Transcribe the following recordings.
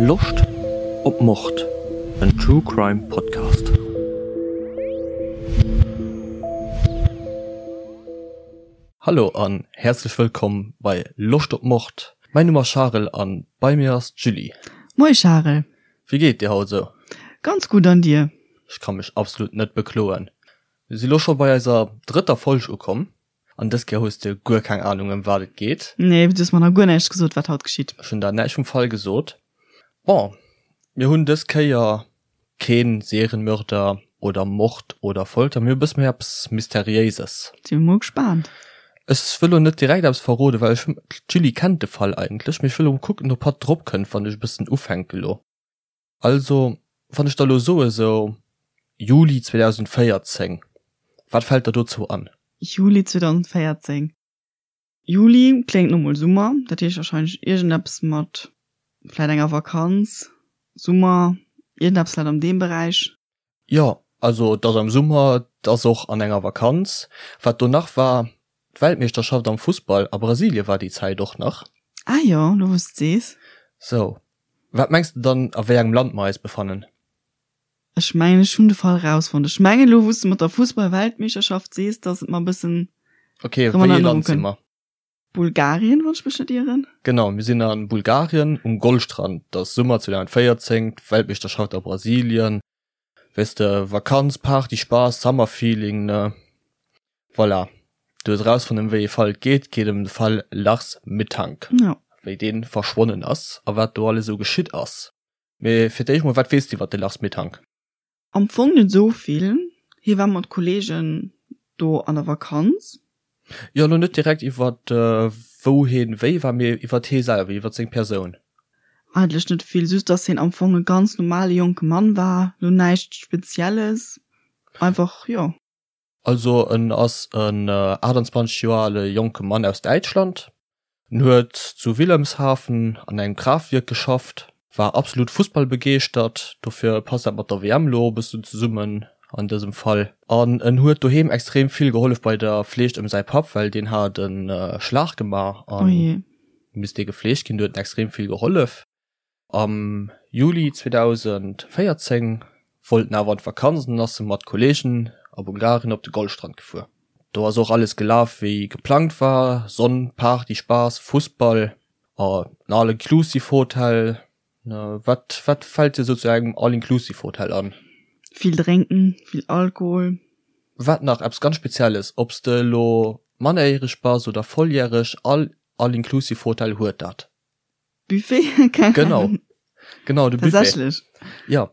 Loscht op Mord? En True Crime Podcast. Hallo an häerzlech wëllkomm bei Loscht op Mord. Mäin Numm ass Charel an bei mir ass d'Julie. Moie Charel. Wéi geet dir haut esou? Ganz gutt an dir? Ech ka mech absolut net bekloen. Mir si lo scho bei eiser drëtter Folg ukomm an dës Kéier hues de guer keng Anung ëm wat et geet. Nee, du hues mer nach guer näischt gesot wat haut geschitt. Ech hunn der näischt vum Fall gesot. Bon, mir hunn dës Kéier keen Serienmörder oder Mord oder Folter, mir hu e bësse méi eppes Mysteriéises. Si mol gespaant. Ech wëll lo net direkt eppes verroden, well ech, d'Julie kennt de Fall eigentlech, mee ech wëll lo kucken ob hatt drop kënnt wann ech e bëssen ufänke lo. Also, wann ech der lo soe sou Juli 2014, wat fält der dozou an? Juli 2014, Juli kléngt no mol Summer, dat heescht wahrscheinlech iergendeppes mat vläit enger Vakanz, Summer, iergendeppes vläit an deem Beräich. Jo, also et ass am Summer, et ass och an enger Vakanz. Wat do nach war, d'Weltmeeschterschaft am Fussball a Brasilie war déi Zäit och nach. Ah jo, lo wou s de sees. Sou, wat mengs de dann, a wéi engem Land mer eis befannen? Ech mengen, ech hunn de Fall rausfonnt. Ech mengen, elo wou s de mat der Fussball-Weltmeeschterschaft sees, dass et mer e bëssen Ok, wéi ee Land si mer? Bulgarien, wann ech mech net ieren. Genau, mir sinn a Bulgarien um Goldstrand. Et ass Summer 2014, d'Weltmeeschterschaft a Brasilien. Weess de, Vakanz, Party, Spaass, Summer-Feeling, ne? Voilà, du hues erausfonnt, ëm wéi ee Fall et geet. Et geet ëm de Fall Lars Mittank, wéi dee verschwonnen ass a wat do alles esou geschitt ass. Mee fir d'éischt mol, wat weess de iwwer de Lars Mittank? Am Fong net esou vill. Hie war mat Kollegen do an der Vakanz. Jo, elo net direkt iwwer wou hien wéi war, mee iwwer hie selwer, iwwer seng Persoun. Eigentlech net vill, just dass hien am Fong e ganz normale jonke Mann war, elo näischt Spezielles, einfach, jo. Also en ass en 28 Joer ale jonke Mann aus Däitschland. En huet zu Wilhelmshaven an engem Kraaftwierk geschafft, war absolut fussballbegeeschtert, dofir passt dat mat der WM elo och e bëssen zesummen an dësem Fall. An en huet doheem extrem vill gehollef bei der Fleeg ëm säi Papp, well deen hat e Schlag gemaach a misst dee gefleegt ginn. Do huet en extrem vill gehollef. Am Juli 2014 wollt en awer an d'Vakanz an ass mat Kolleegen a Bulgarien op de Goldstrand gefuer. Do ass och alles gelaf wéi geplangt war, Sonn, Party, Spaass, Fussball a en All-Inclusive Hotel. Wat wat fält dir sou zu engem All-Inclusive Hotel an? Vill drénken, vill Alkohol. Wat nach eppes ganz Spezielles, ob s de elo mannerjäreg bass oder volljäreg, all All-Inclusive Hotel huet dat. Buffet? Keng Genau. Ahnung. Genau, de Buffet. Tatsächlech? Ja,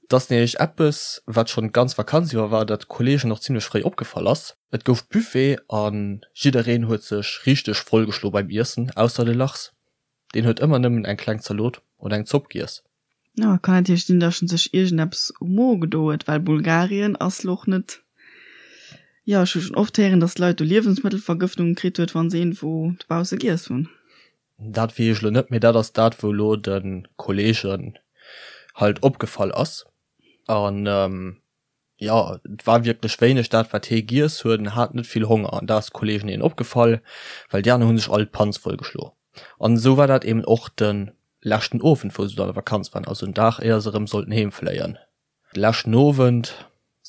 dat ass nämlech eppes, wat schonn d'ganz Vakanz iwwer war, dat de Kolleegen och zimmlech fréi opgefall ass. Et gouf Buffet a jiddereen huet sech richteg vollgeschlo beim Iessen, ausser de Lars. Deen huet ëmmer nëmmen eng kleng Zalot oder eng Zopp giess. Jo, kann natierlech sinn, dass en sech iergendeppes um Mo gedo huet, well Bulgarien ass lo och net, jo, ech hu schonn oft héieren, dass Leit do Liewensmëttelvergëftungen kritt huet, wa se iergendwou dobausse giess hunn. Dat weess ech elo net, mee dat ass dat, wou elo de Kolleegen halt opgefall ass. An jo, et war wierklech wéineg dat, wat hee giess huet. En hat net vill Honger an dat ass de Kolleegen eben opgefall, well déi aner hu sech all d'Panz vollgeschlo. An esou war dat eben och de leschten Owend, wou se do an der Vakanz waren, also en Dag éier se erëm sollten heemfléien. De leschten Owend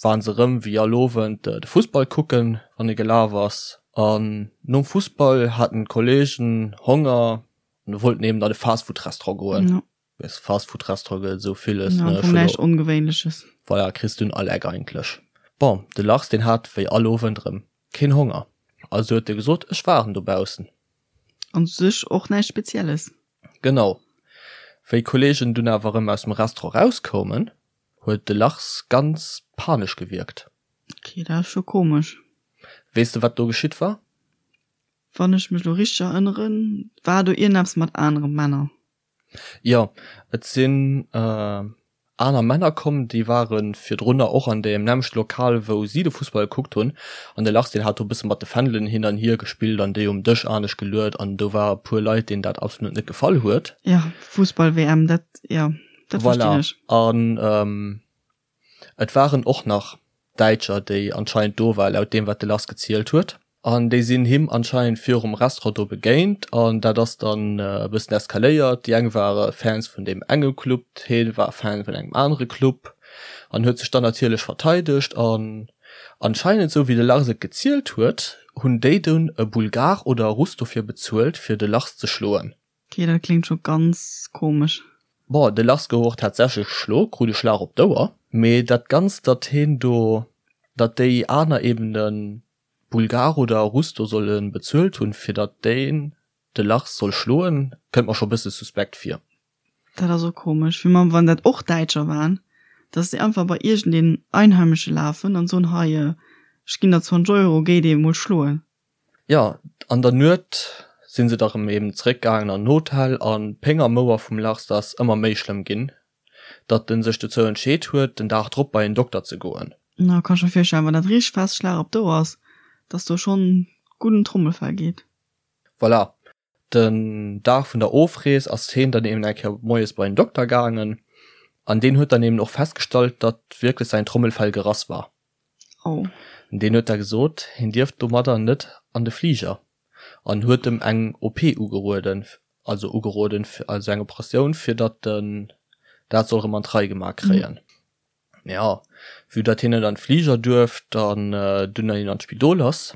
waren se erëm wéi all Owend de Fussball kucken, wann e gelaf ass. An nom Fussball haten d'Kollegen Honger an wollten eben an e Fastfood-Restaurant goen. Ja. Weess, Fastfood-Restaurant gëtt et esou villes, ne? Ja, näischt Ongewéinleches. Voilà, kriss du un all Eck eigentlech. Bon, de Lars, deen hat wéi all Owend erëm keen Honger. Also huet e gesot, ech waarden dobaussen. An sech och näischt Spezielles. Genau. Wéi d'Kollegen dunn awer erëm aus dem Restaurant erauskoumen, huet de Lars ganz panesch gewierkt. Ok, dat ass scho komesch. Weess de, wat do geschitt war? Wann ech mech lo richteg erënneren, war do iergendeppes mat anere Männer. Jo, et sinn aner Männer komm, déi ware virdrunner och an deem nämmlechte Lokal, wou si de Fussball gekuckt hunn. An de Lars, deen hat do e bësse mat de Fändelen hin an hier gespillt an déi um Dësch anescht geluet an do war e puer Leit, deenen dat absolut net gefall huet. Jo, Fussball-WM, dat, jo, dat verstinn ech. Voilà, an et waren och nach Däitscher, déi anscheinend do waren, laut deem, wat de Lars gezielt huet. An déi sinn him anscheinend virum Restaurant do begéint an dat ass dann e bëssen eskaléiert. Déi eng ware Fans vun deem enge Club, hee war Fan vun engem anere Club an huet sech dann natierlech verteidegt. An anscheinend, sou wéi de Lars et gezielt huet, hunn déi dunn e Bulgar oder e Russ dofir bezuelt, fir de Lars ze schloen. Ok, dat kléngt scho ganz komesch. Bon, de Lars gouf och tatsächlech geschlo, krut e Schlag op d'Ouer. Mee dat Ganzt, datt heen do, datt déi aner eben de Bulgar oder Russ do solle bezuelt hunn, fir datt deen de Lars soll schloen, kënnt mer scho bësse suspekt vir. Dat ass och komesch, wéi wann dat och Däitscher waren, datt déi einfach bei iergendeen Einheimesche lafen an soen, hei, ech ginn der 20 Euro, géi dee mol schloen. Jo, an der Nuet sinn se da rëm eben zeréck gaangen an den Hotel an d'Péng am Ouer vum Lars ass ëmmer méi schlëmm ginn, datt en sech dozou entscheet huet, den Dag drop bei en Dokter ze goen. Na, kann ech mer virstellen, wann dat richteg fest Schlag op d'Ouer ass, dass do schonn gutt en Trommelfell geet. Voilà, den Dag vun der Ofrees ass heen dann eben eng Kéier moies bei en Dokter gaangen an deen huet dann eben och festgestallt, datt wierklech säin Trommelfell gerass war. Oh. Deen huet da gesot, hien dierft domadder net an de Fliger an huet em eng OP ugerueden, also ugeroden, also eng Operatioun, fir datt en dat soll erëm an d'Rei gemaach kréien. Jo, vue datt hien net an d'Fliger duerft an dunn hien an d'Spidol ass,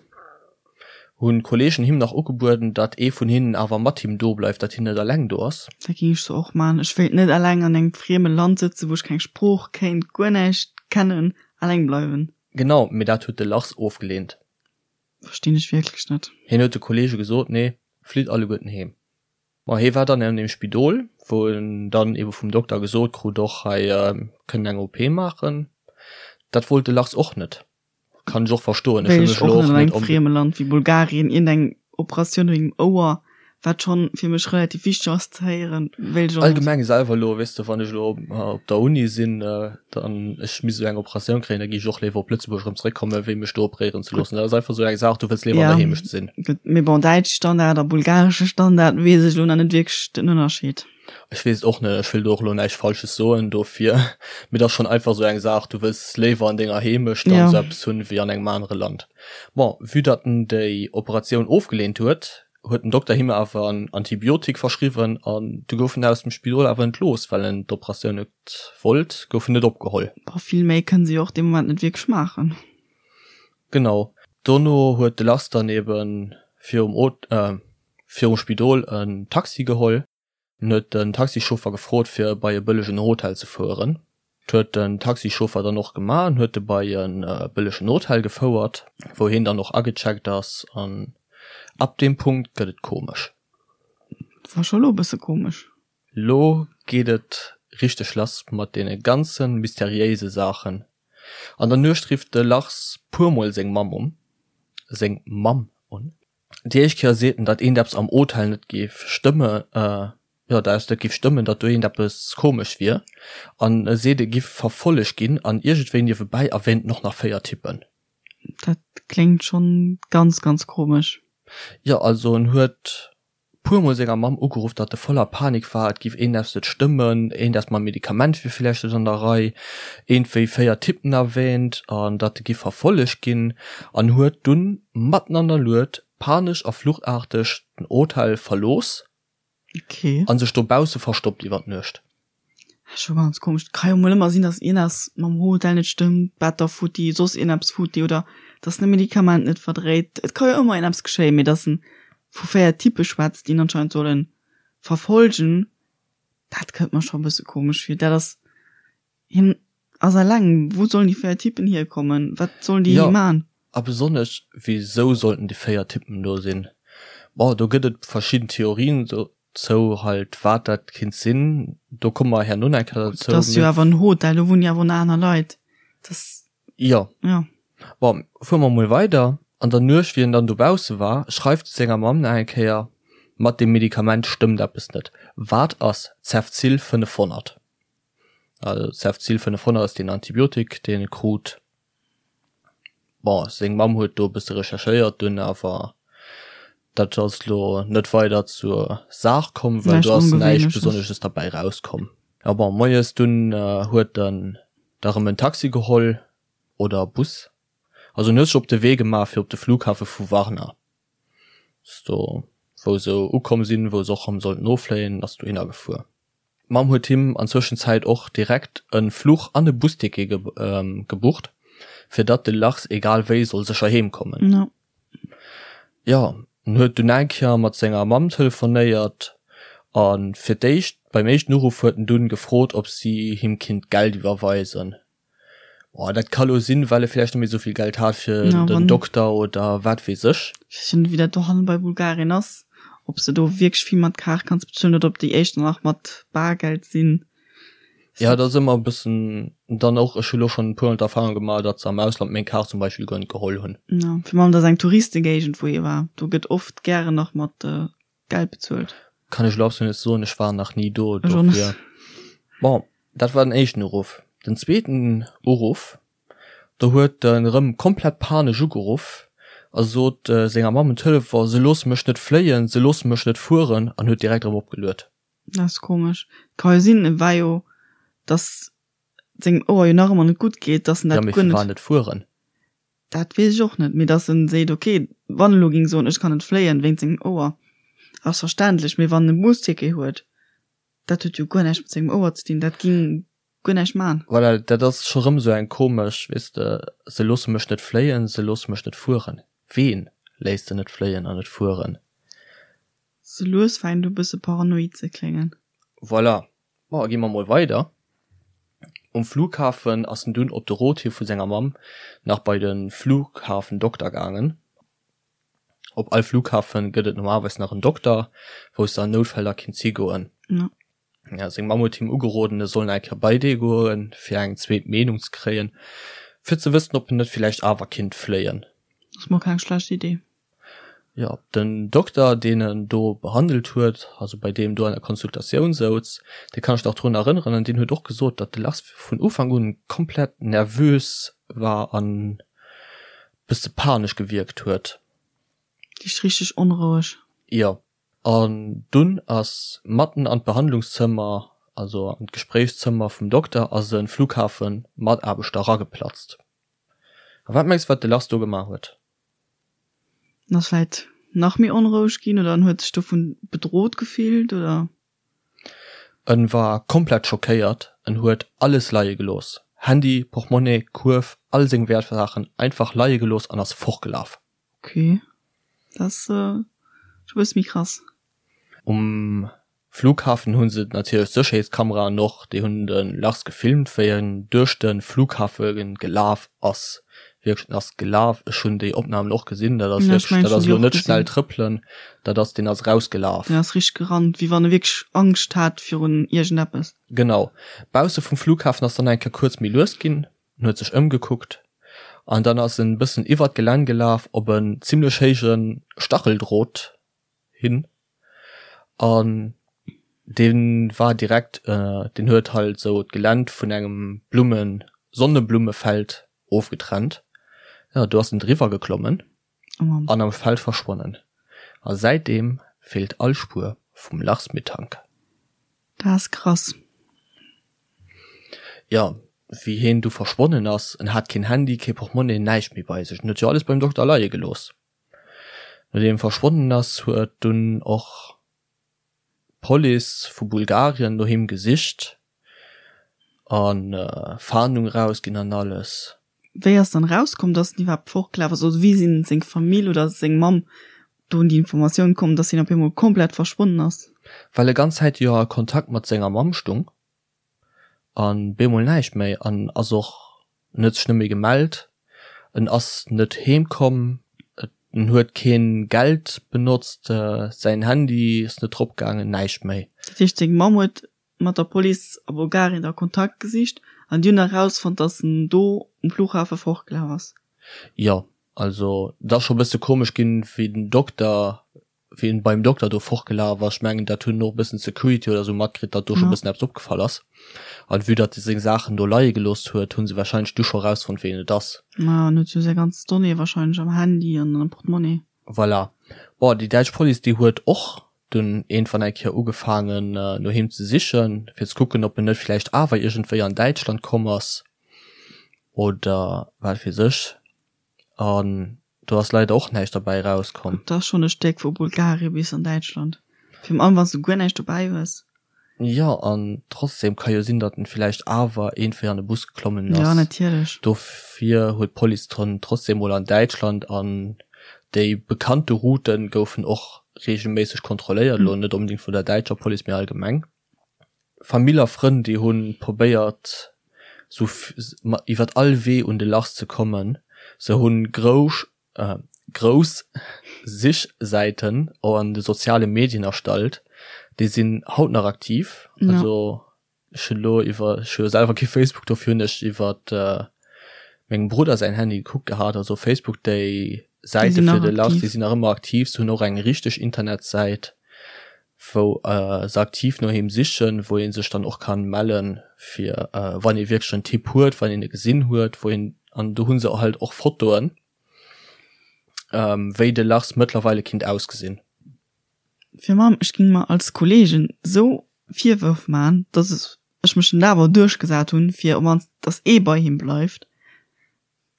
hunn d'Kollegen him nach ugebueden, datt ee vun hinnen awer mat him do bleift, datt hien net eleng do ass. Dat géing ech sou och man. Ech wéilt net eleng an engem frieme Land sëtzen, wou ech keng Sprooch kéint, guer näischt kennen, eleng bleiwen. Genau, mee dat huet de Lars ofgeleent. Verstinn ech wierklech net. Hien huet de Kollege gesot, Nee, flitt alleguerten heem. Ma hie war dann an deem Spidol, wou en dann ebe vum Dokter gesot krut, och hei kënnen eng OP maachen. Dat wollt de Lars och net. Kann ech och verstoen. Ech wéilt och net an engem frieme Land wéi Bulgarien iergendeng Operatioun wéinst dem Ouer, wat schonn fir mech relativ wichteg ass ze héieren, wéilt ech och net. Allgemeng selwer elo, weess de, wann ech elo op der Uni sinn, dann ech misst esou eng Operatioun kréien, da géif ech och léiwer op Lëtzebuerg erëm zeréckkommen, wéi mech do operéieren ze loossen. Dat ass einfach esou eng Saach, du wëlls léiwer an der Heemecht sinn. Gutt, mee bon, däitsche Standard a bulgaresche Standard weess ech elo nach net wierklech den Ënnerscheed. Ech weess et och net, ech wëll do och elo näischt Falsches soen dofir, mee et ass schonn einfach esou eng Saach, du wëlls léiwer an denger Heemecht dann esou eppes hunn, wéi an engem anere Land. Bon, vue datt en déi Operatioun ofgeleent huet, huet den Dokter him awer en Antibiotik verschriwwen an du gouf en aus dem Spidol awer entlooss, well en d'Operatioun net wollt, gouf en net opgeholl. Boah, vill méi kënnen se jo och dee Moment net wierklech maachen. Genau. Dono huet de Lars dann eben virum virum Spidol en Taxi geholl. En huet den Taxichauffer gefrot fir e bei e bëllegen Hotel ze fueren. Dat huet den Taxichauffer dann och gemaach an huet e bei e bëllegen Hotel gefouert, wou heen dann och agecheckt ass an ab deem Punkt gëtt et komesch. War scho lo e bësse komesch. Lo geet et richteg lass mat deene ganze mysteriéise Saachen. An der Nuecht rifft de Lars puermol seng Mamm un, seng Mamm un. Déi éischt Kéier seet en, datt eent eppes am Hotel net géif stëmme, jo, datt eppes net géif stëmmen, datt do eent eppes komesch wier. An e seet, e giff verfollegt ginn an iergendwéi niewebäi erwähnt en och nach 4 Typen. Dat kléngt schonn ganz, ganz komesch. Jo, also en huet puer mol senger Mamm ugeruff, datt e voller Panik war, et giff eendeps net stëmmen, eendeps mam Medikament wier villäicht net an der Rei, eentwéi 4 Typen erwähnt an datt e giff verfollegt ginn an huet dunn matten an der Nuet panesch a fluchtaarteg den Hotel verlooss Okay. an sech dobausse verstoppt iwwer d'Nuecht. Scho ganz komesch. Et ka jo mol ëmmer sinn, dass ieneps mam Hotel net stëmmt, d'Better futti, soss ieneps futti oder dass en e Medikament net verdréit. Et ka jo ëmmer ieneps geschéien, mee dass en vu 4 Typpe schwätzt, déi en anscheinend solle verfolgen, dat kënnt mer scho e bësse komesch vir. Dat ass, hien ass eleng, wou sollen déi 4 Typpen hierkommen? Wat sollen déi Jo, man? a besonnesch, wisou sollten déi 4 Typpen do sinn? Bon, do gëtt et verschidden Theorien dozou, halt wat dat kinnt sinn, do komme mer herno nach eng Kéier dozou. Dat ass jo awer en Hotel, do wunnen jo awer och nach aner Leit. Dat. Jo. Jo. Bon, fuere mer mol weider. An der Nuecht, wéi en dann dobausse war, schreift e senger Mamm nach eng Kéier, Mat deem Medikament stëmmt eppes net. Wat ass Cefzil 500? Also Cefzil 500 ass deen Antibiotik, deen e krut. Bon, seng Mamm huet do e bësse recherchéiert dunn, awer dat ass lo net weider zur Saach komm, well do ass näischt Besonnesches derbäi rauskomm. Ja bon, moies dunn huet en da rëm en Taxi geholl oder e Bus. Also en huet sech op de Wee gemaach fir op de Flughafe vu Varna. Ass do wou se ukomm sinn, wou se och erëm sollten offléien, ass dohinner gefuer. D'Mamm huet him an Zwëschenzäit och direkt e Fluch an e Busticket gebucht, fir datt de Lars egal wéi soll sécher heem kommen. No. Jo, en huet dunn eng Kéier mat senger Mamm telefonéiert a fir d'éischt, beim éischten Uruff huet en dunn gefrot, ob si him kinnt Geld iwwerweisen. Boah, dat ka lo sinn, well e villäicht net méi esou vill Geld hat fir Ja, den wann- Dokter oder wat weess ech. Ech weess jo net, wéi dat dohannen bei Bulgarien ass, ob s de do wierklech vill mat Kaart kanns bezuelen oder ob déi éischter nach mat Bargeld sinn. Ja, dat ass ëmmer e bëssen dann och, ech hu lo schonn e puermol d'Erfahrung gemaach, datt se am Ausland meng Kaart zum Beispill guer net geholl hunn. Ja, virun allem dat ass eng Touristegéigend, wou hie war. Do gëtt oft gären nach mat Geld bezuelt. Kann ech elo absolut net soen, ech war nach ni do, Ech och net. dofir. Bon, dat war den éischten Uruff. Den zweeten Uruff, do huet en erëm komplett panesch ugeruff a sot senger Mamm um Telefon, se loosse mech net fléien, se loosse mech net fueren an huet direkt erëm opgeluet. Dat ass komesch. Ka jo sinn, e war jo, dass sengem Ouer jo nach ëmmer net gutt geet, dass en Ja, dat mee guer firwat net. net fueren? Dat weess ech och net, mee dass en seet, ok, wann e lo géing soen, ech kann net fléien wéinst sengem Ouer, ass verständlech, mee wann en e Busticket huet, dat huet jo guer näischt mat sengem Ouer ze dinn, dat ging guer näischt man. Voilà, dat ass scho rëm sou eng komesch, weess de, se loosse mech net fléien, se loosse mech net fueren. Ween léisst se net fléien an net fueren? Sou lues fänkt u bësse paranoid ze kléngen. Voilà, Bon, gi mer mol weider. Um Flughafen ass en dunn op de Rot hi vu senger Mamm nach bei de Flughafendokter gaangen. Op all Flughafen gëtt et normalerweis nach en Dokter, wou s de an Noutfäll da kinns higoen. Ja. Ja, seng Mamm huet him ugeroden, e soll nach eng Kéier bei dee goen, fir eng zweet Meenung ze kréien, fir ze wëssen, ob en net villäicht awer kinnt fléien. Ass mol keng schlecht Idee. Jo, den Dokter, deen en do behandelt huet, also bei deem do an der Konsultatioun souz, dee kann ech nach drun erënneren an deen huet och gesot, datt de Lars vun Ufank un komplett nervös war an bësse panesch gewierkt huet. Heescht richteg onroueg. Jo, an dunn ass matten an d'Behandlungszëmmer, also an d'Gespréichszëmmer vum Dokter ass e Flughafen-Mataarbechter erageplatzt. A wat mengs wat de Lars do gemaach huet? En ass vläit nach méi onroueg ginn oder en huet sech dovun bedrot gefillt oder? En war komplett schockéiert, en huet alles leie gelooss, Handy, Portmonnaie, Kuerf, all seng Wäertsaachen einfach leie gelooss an ass fortgelaf. Ok, dat ass scho bësse méi krass. Um Flughafen hu se natierlech d'Sécherheetskameraen och, déi hunn de Lars gefilmt, wéi en duerch de Flughafe gelaf ass. Wierklech, en ass gelaf. Ech hunn déi Opnamen och gesinn, dat ass wierklech, dat ass elo net schnell trëppelen, dat ass, deen ass erausgelaf. Deen ass richteg gerannt, wéi wann e wierklech Angscht hat virun iergendeppes. Genau. Bausse vum Flughafen ass dann eng Kéier kuerz méi lues ginn, en huet sech ëmgekuckt an dann ass en e bëssen iwwert d'Gelänn gelaf op en zimmlech héije Stacheldrot hin an dee war direkt, deen huet halt sou d'Geländ vun engem Blummen Sonneblummefeld ofgetrennt. Jo, do ass en driwwer geklommen an am Feld verschwonnen. A säitdeem feelt all Spuer vum Lars Mittank. Dat ass krass. Jo, wéi heen du verschwonnen ass, en hat keen Handy, kee Portmonnaie, näischt méi bei sech. En huet jo alles beim Dokter leie gelooss. Nodeem e verschwonnen ass, huet dunn och d'Police vu Bulgarien no him gesicht a Fahndung erausginn an alles. Wéi ass dann erauskomm, dass en iwwerhaapt fortgelaf ass? Also wéi sinn seng Famill oder seng Mamm do un déi Informatioun komm, dass hien op eemol komplett verschwonnen ass? Well e ganz Zäit jo a Kontakt mat senger Mamm stung. An bemol näischt méi an ass och, en huet sech net méi gemellt, en ass net heem komm, en huet keen Geld benotzt, säin Handy ass net drop gaangen, näischt méi. Dat heescht seng Mamm huet mat der Police a Bulgarien da Kontakt gesicht an déi hunn erausfonnt, dass en do um Flughafe fortgelaf ass? Jo, also et ass scho bësse komesch ginn, wéi den Dokter wéi en beim Dokter do fortgelaf ass, ech mengen dat hunn och e bëssen d'Security oder sou matkritt, datt do scho bëssen eppes opgefall ass. An vue datt e seng Saachen do leie gelooss huet, hu se wahrscheinlech du scho erausfonnt ween et ass. Ma en huet jo säi ganz Donnéeë wahrscheinlech am Handy an am Portemonnaie. Voilà. Bon, déi däitsch Police déi huet och dunn iergendwann eng Kéier ugefaangen no him ze sichen, fir ze kucken ob en net villäicht awer iergendwéi an Däitschland komm ass oder wat weess ech. An do ass leider och näischt derbäi erauskomm. Dat ass schonn e Stéck vu Bulgarien bis an Däitschland. Virun allem wann s du guer näischt dobäi hues. Jo, an trotzdem ka jo sinn, datt en villäicht awer iergendwéi an e Bus geklommen ass. Jo, natierlech. Dofir huet d'Police dann trotzdem mol an Däitschland an déi bekannte Routen goufen och reegelméisseg kontrolléiert, elo net onbedéngt vun der däitscher Police, mee allgemeng. Famill a Frënn, déi hu probéiert sou iwwert all Wee un de Lars ze kommen. Se hunn grousch grouss Sichsäiten an de soziale Medien erstallt, déi sinn haut nach aktiv. Also ech hunn elo iwwer, ech hu jo selwer kee Facebook, dofir hunn ech iwwert mengem Brudder säin Handy gekuckt gehat. Also Facebook, déi Säite fir de Lars, déi sinn nach ëmmer aktiv. Se hunn och eng richteg Internetsäit. wou se aktiv no him sichen, wou ee sech dann och kann mellen fir wann ee wierklech en Tipp huet, wann een e gesinn huet, wou een, an do hu se halt och Fotoen, wéi de Lars mëttlerweile kinnt ausgesinn. Fir mam, ech ging mer als Kollegen sou Virwërf man, dass ech mech dann awer duerchgesat hunn, fir op mannst dass ee bei him bleift.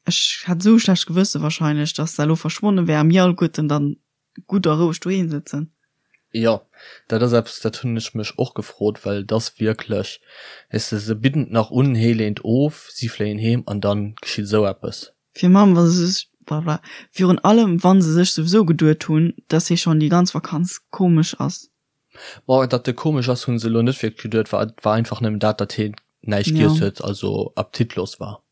Ech hätt sou e schlecht Gewësse wahrscheinlech, dass se elo verschwonne wär a mir alleguerten dann gutt a roueg doheem sëtzen. Jo, dat ass eppes, dat hunn ech mech och gefrot, well et ass wierklech, weess de, se bidden et nach un, hee leent of, si fléien heem an dann geschitt esou eppes. Virun allem, wa se sech, blablabla, virun allem, wa se sech souwisou geduet hunn, dass hie schonn déi ganz Vakanz komesch ass. Bon, datt e komesch ass, hu se elo net wierklech geduet, war, et war einfach nëmmen dat, datt hien näischt giess huet, also appetitlos war.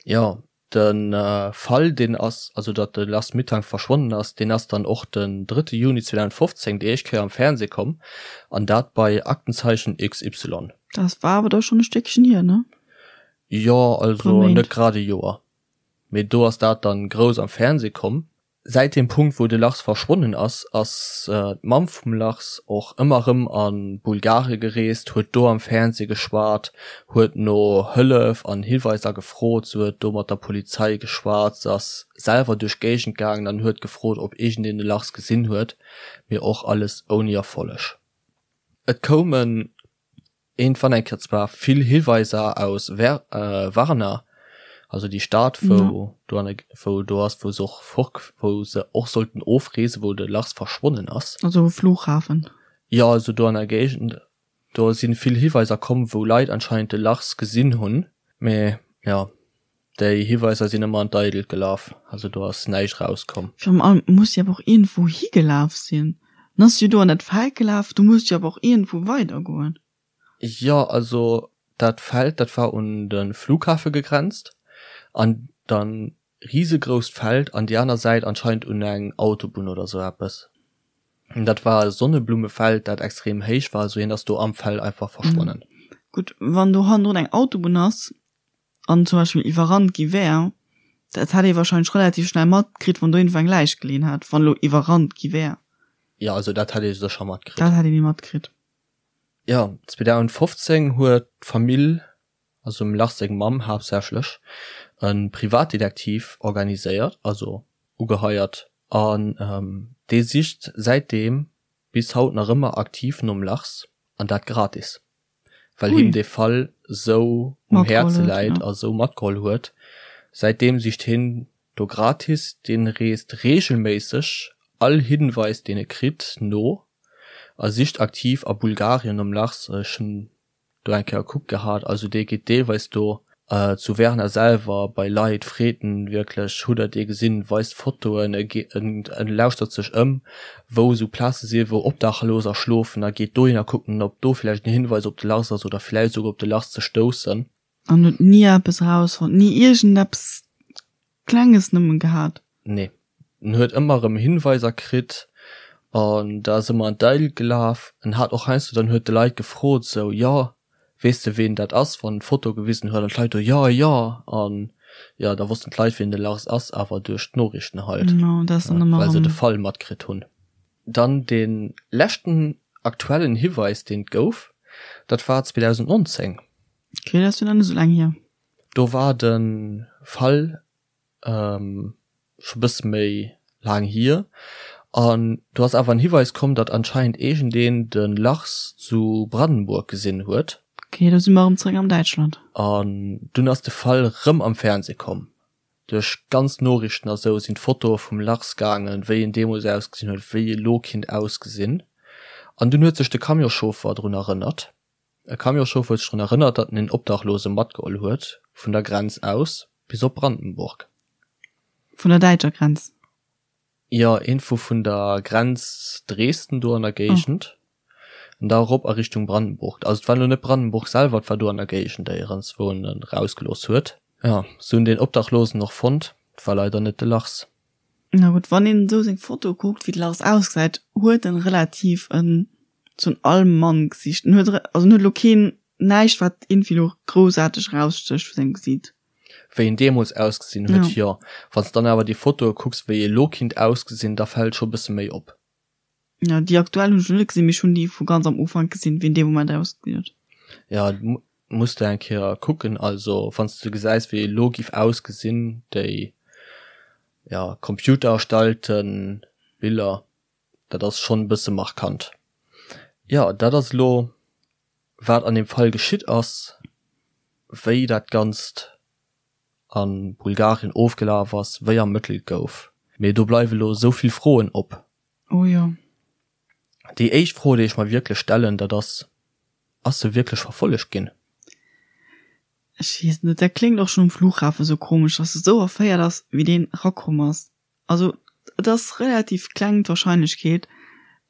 Jo. De Fall, deen ass, also datt de Lars Mittank verschwonnen ass, deen ass dann och den drëtte Juni 2015 déi éischt Kéier am Fernseh komm, an dat bei Aktenzeichen XY. Dat war awer da schonn e Stéckchen hier, ne? Jo, also net grad e Joer, mee do ass dat dann grouss am Fernseh komm. Säit deem Punkt, wou de Lars verschwonnen ass, ass d'Mamm vum Lars och ëmmer erëm a Bulgarie gereest, huet do am Fernsee geschwat, huet no Hëllef an Hiweiser gefrot, se huet do mat der Polizei geschwat, se ass selwer duerch d'Géigend gaangen an huet gefrot, ob iergendeen de Lars gesinn huet, mee och alles ouni Erfolleg. Et koumen Iergendwann eng Kéier zwar vill Hiweiser aus Varna, also déi Stad wou do an wou do ass, wou se och fort wou se och sollten ofreesen, wou de Lars verschwonnen ass. Also um Flughafen. Jo, also do an der Géigend. Do si vill Hiweiser komm, wou Leit anscheinend de Lars gesinn hunn. Mee jo, déi Hiweiser sinn ëmmer an d'Eidelt gelaf, also do ass näischt rauskomm. Virun allem muss jo awer och iergendwou higelaf sinn. En ass jo do an dat Feld gelaf, do muss jo awer och iergendwou weidergoen. Jo, also dat Feld, dat war un de Flughafe gegrenzt an dann risegrousst Feld an déi aner Säit anscheinend un eng Autobunn oder sou eppes. Dat war e Sonneblumefeld, dat extrem héich war, also hien ass do am Feld einfach verschwonnen. Gutt, wann do hannendrun eng Autobunn ass, an zum Beispill iwwerrannt gi wär, dat hätt ee wahrscheinlech relativ schnell matkritt, wann do iergendwou eng Läich geleeën hätt, wann elo iwwerrannt gi wär. Jo, also dat hätt ee sécher matkritt. Dat hätt ee méi matkritt. Jo, 2015 huet d'Famill, also dem Lars seng Mamm haaptsächlech, e Privatdetektiv organiséiert, also ugeheiert, an dee sicht säitdeem bis haut nach ëmmer aktiv nom Lars, an dat gratis. well him dee Fall sou um Häerze läit a sou matgeholl huet. Säitdeem sicht hien do gratis, dee reest reegelméisseg all Hinweis deen e kritt no a sicht aktiv a Bulgarien nom Lars. Ech hunn do eng Kéier gekuckt gehat, also dee geet deelweis do zu Werner selwer bei Leit, freet en wierklech, hutt der dee gesinn, weist Fotoen, e lauschtert sech ëm, wou esou Plaze si wou Obdachloser schlofen a geet dohinner kucken, ob do vläicht en Hinweis op de Lars ass oder vläicht esouguer op de Lars ze stoussen. An huet ni eppes erausfonnt, ni iergendeppes Klenges nëmmen gehat? Nee, en huet ëmmer erëm Hinweiser kritt an da ass ëmmer an d'Eil gelaf. En hat och heiansdo dann huet de Leit gefrot esou, jo, weess de ween dat ass, wann en d'Foto gewisen huet an d'Leit do, jo, jo an jo, da wossten d'Leit ween de Lars ass, awer duerch d'Noriichten halt, well se de Fall matkritt hunn. Dann dee leschten aktuellen Hiweis deen et gouf, dat war 2019. Ok, dat ass jo nach net esou laang hier. Do war de Fall scho bësse méi laang hier an do ass awer en Hiweis komm, datt anscheinend iergendeen de Lars zu Brandenburg gesinn huet. Ok, do si mer erëm zeréck am Däitschland. An dunn ass de Fall rëm am Fernseh komm. Duerch ganz Noriichten a sou sinn d'Fotoe vum Lars gaangen, wéi en deemools ausgesinn huet, wéi e lo kinnt ausgesinn. An dunn huet sech de Camionschauffer drun erënnert. E Camionschauffer huet sech drun erënnert, datt en een Obdachlose matgeholl huet vun der Grenz aus bis op Brandenburg. Vun der däitscher Grenz? Jo, iergendwou vun der Grenz Dresden do an der Géigend an da erop a Richtung Brandenburg. Also et war elo net Brandenburg selwer, et war do an der Géigend éierens, wou en en erausgelooss huet. Jo, se hunn deen Obdachlosen och fonnt, et war leider net de Lars. Na gutt, wann een esou seng Foto kuckt, wéi de Lars ausgesäit, huet en relativ en sou en Allmann-Gesicht. En huet, also en huet elo keen, näischt wat iergendwéi elo groussaarteg erausstécht vu sengem Gesiit. Wéi en deemools ausgesinn huet, jo. Wann s dann awer déi Fotoe kucks, wéi e lo kinnt ausgesinn, da fält scho bësse méi op. Jo, déi aktuell hunn ech nach net gesinn, mee ech hunn déi vu ganz am Ufank gesinn, wéi en dee Moment ausgesinn huet. Jo, muss de eng Kéier kucken. Also wann s de gesäis, wéi e lo giff ausgesinn, déi, jo, computererstellte Biller, dat ass schonn e bësse markant. Jo, dat ass elo wat an deem Fall geschitt ass, wéi dat Ganzt a Bulgarien ofgelaf ass, wéi ermëttelt gouf. Mee do bleiwe lo esou vill Froen op. Oh jo. Déi éischt Fro, déi ech mer wierklech stellen, dat ass, Ass se wierklech verfollegt ginn? Ech weess net, dat kléngt och schonn um Flughafen esou komesch, dass se esou erféiert ass, wéi deen erakomm ass. Also et ass relativ kleng d'Wahrscheinlechkeet,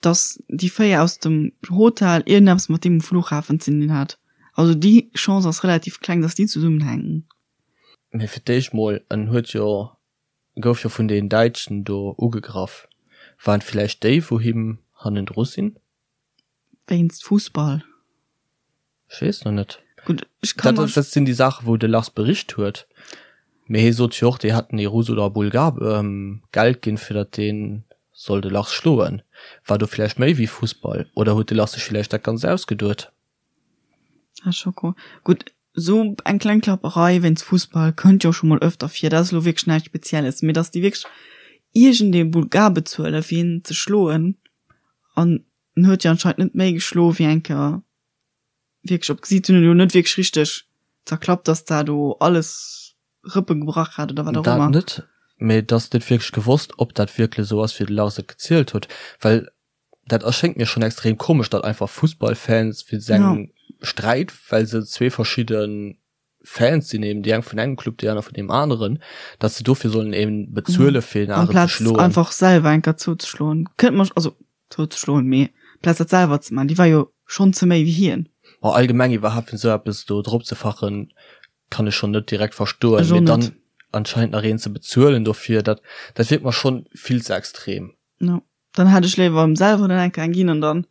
dass déi 4 aus dem Hotel iergendeppes mat deem um Flughafen ze dinn hat. Also déi Chance ass relativ kleng, dass déi zesummenhänken. Mee fir d'éischt mol, en huet jo, gouf jo vun den Däitschen do ugegraff. Waren et villäicht déi wou him hannendru sinn? Wéinst Fussball? Ech weess noch net. Gutt, ech kann Dat, dat sinn déi Saachen, wou de Lars bericht huet. Mee hie sot jo och, déi hätten ee Russ oder e Bulgar Geld ginn, fir datt dee soll de Lars schloen. War do villäicht méi wéi Fussball? Oder huet de Lars sech villäicht dat Ganzt ausgeduet? Ah, Schoko. Gutt, esou eng kleng Klapperei wéinst Fussball kënnt jo scho mol öfter vir. Dat ass elo wierklech näischt Spezielles. Mee datt déi wierklech iergendee Bulgar bezuelen, fir hien ze schloen, an en huet jo anscheinend net méi geschloe wéi eng Kéier wierklech op d'Gesiit. Hunn en elo net wierklech richteg zerklappt, dass dat do alles Rëppe gebrach hat oder wat och ëmmer. Dat net, mee et ass net wierklech gewosst, ob dat wierklech esou ass, wéi de Lars et gezielt huet, well dat erschéngt mir schonn extrem komesch, datt einfach Fussballfans wéinst engem Sträit, well se zwee verschidde Fans sinn, eben déi eng vun engem Club, déi aner vun deem aneren, datt se dofir sollen eben bezuele fir een aneren ze schloen. Amplaz einfach selwer eng Kéier zouzeschloen, kënnt mer, also zouzeschloen, mee amplaz dat selwer ze man, déi war jo schonn ze méi wéi hien. Ma allgemeng iwwerhaapt fir esou eppes do drop ze fachen, kann ech schonn net direkt verstoen, mee dann anscheinend nach een ze bezuelen dofir, dat dat wierkt mer schonn vill ze extrem. Jo, dann hätt ech léiwer em selwer dann eng Kéier eng ginn an dann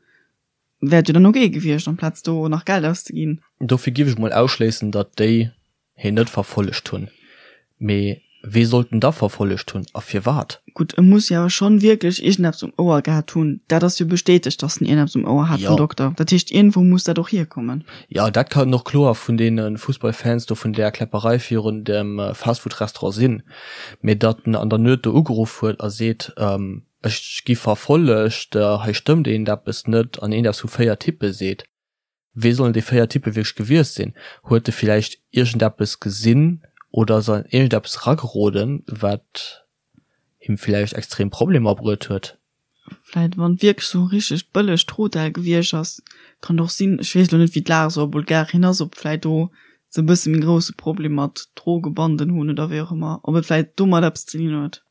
Wär et jo dann ok gewiescht, amplaz do nach Geld auszeginn. Dofir giff ech mol ausschléissen, datt déi heen net verfollegt hunn. Mee wee sollt en da verfollegt hunn a firwat? Gutt, e muss jo awer schonn wierklech iergendeppes um Ouer gehat hunn. Dat ass jo bestätegt, datt en iergendeppes um Ouer hat vum Dokter. Dat heescht, iergendwou muss dat och hierkommen. Jo, dat kann och kloer vun deene Fussballfans do vun där Kläpperei virun dem Fastfood-Restaurant sinn. Mee datt en an der Nuet do ugeruff huet a seet, Ech gi verfollegt, hei stëmmt eent eppes net an eent eppes vu 4 Typpe seet. Wee sollen déi 4 Typpe wierklech gewiescht sinn? Huet e villäicht iergendeppes gesinn oder ass an iergendeppes erageroden, wat him villäicht extrem Problemer bruet huet? Vläit wann et wierklech sou e richtegt bëllegt Hotel gewiescht ass, kann et och sinn, ech weess elo net wéi d'Lag esou a Bulgarien ass, ob vläit do se e bësse méi grousse Problem mat Drogebanden hunn oder wéi och ëmmer, ob et vläit domat eppes ze dinn huet.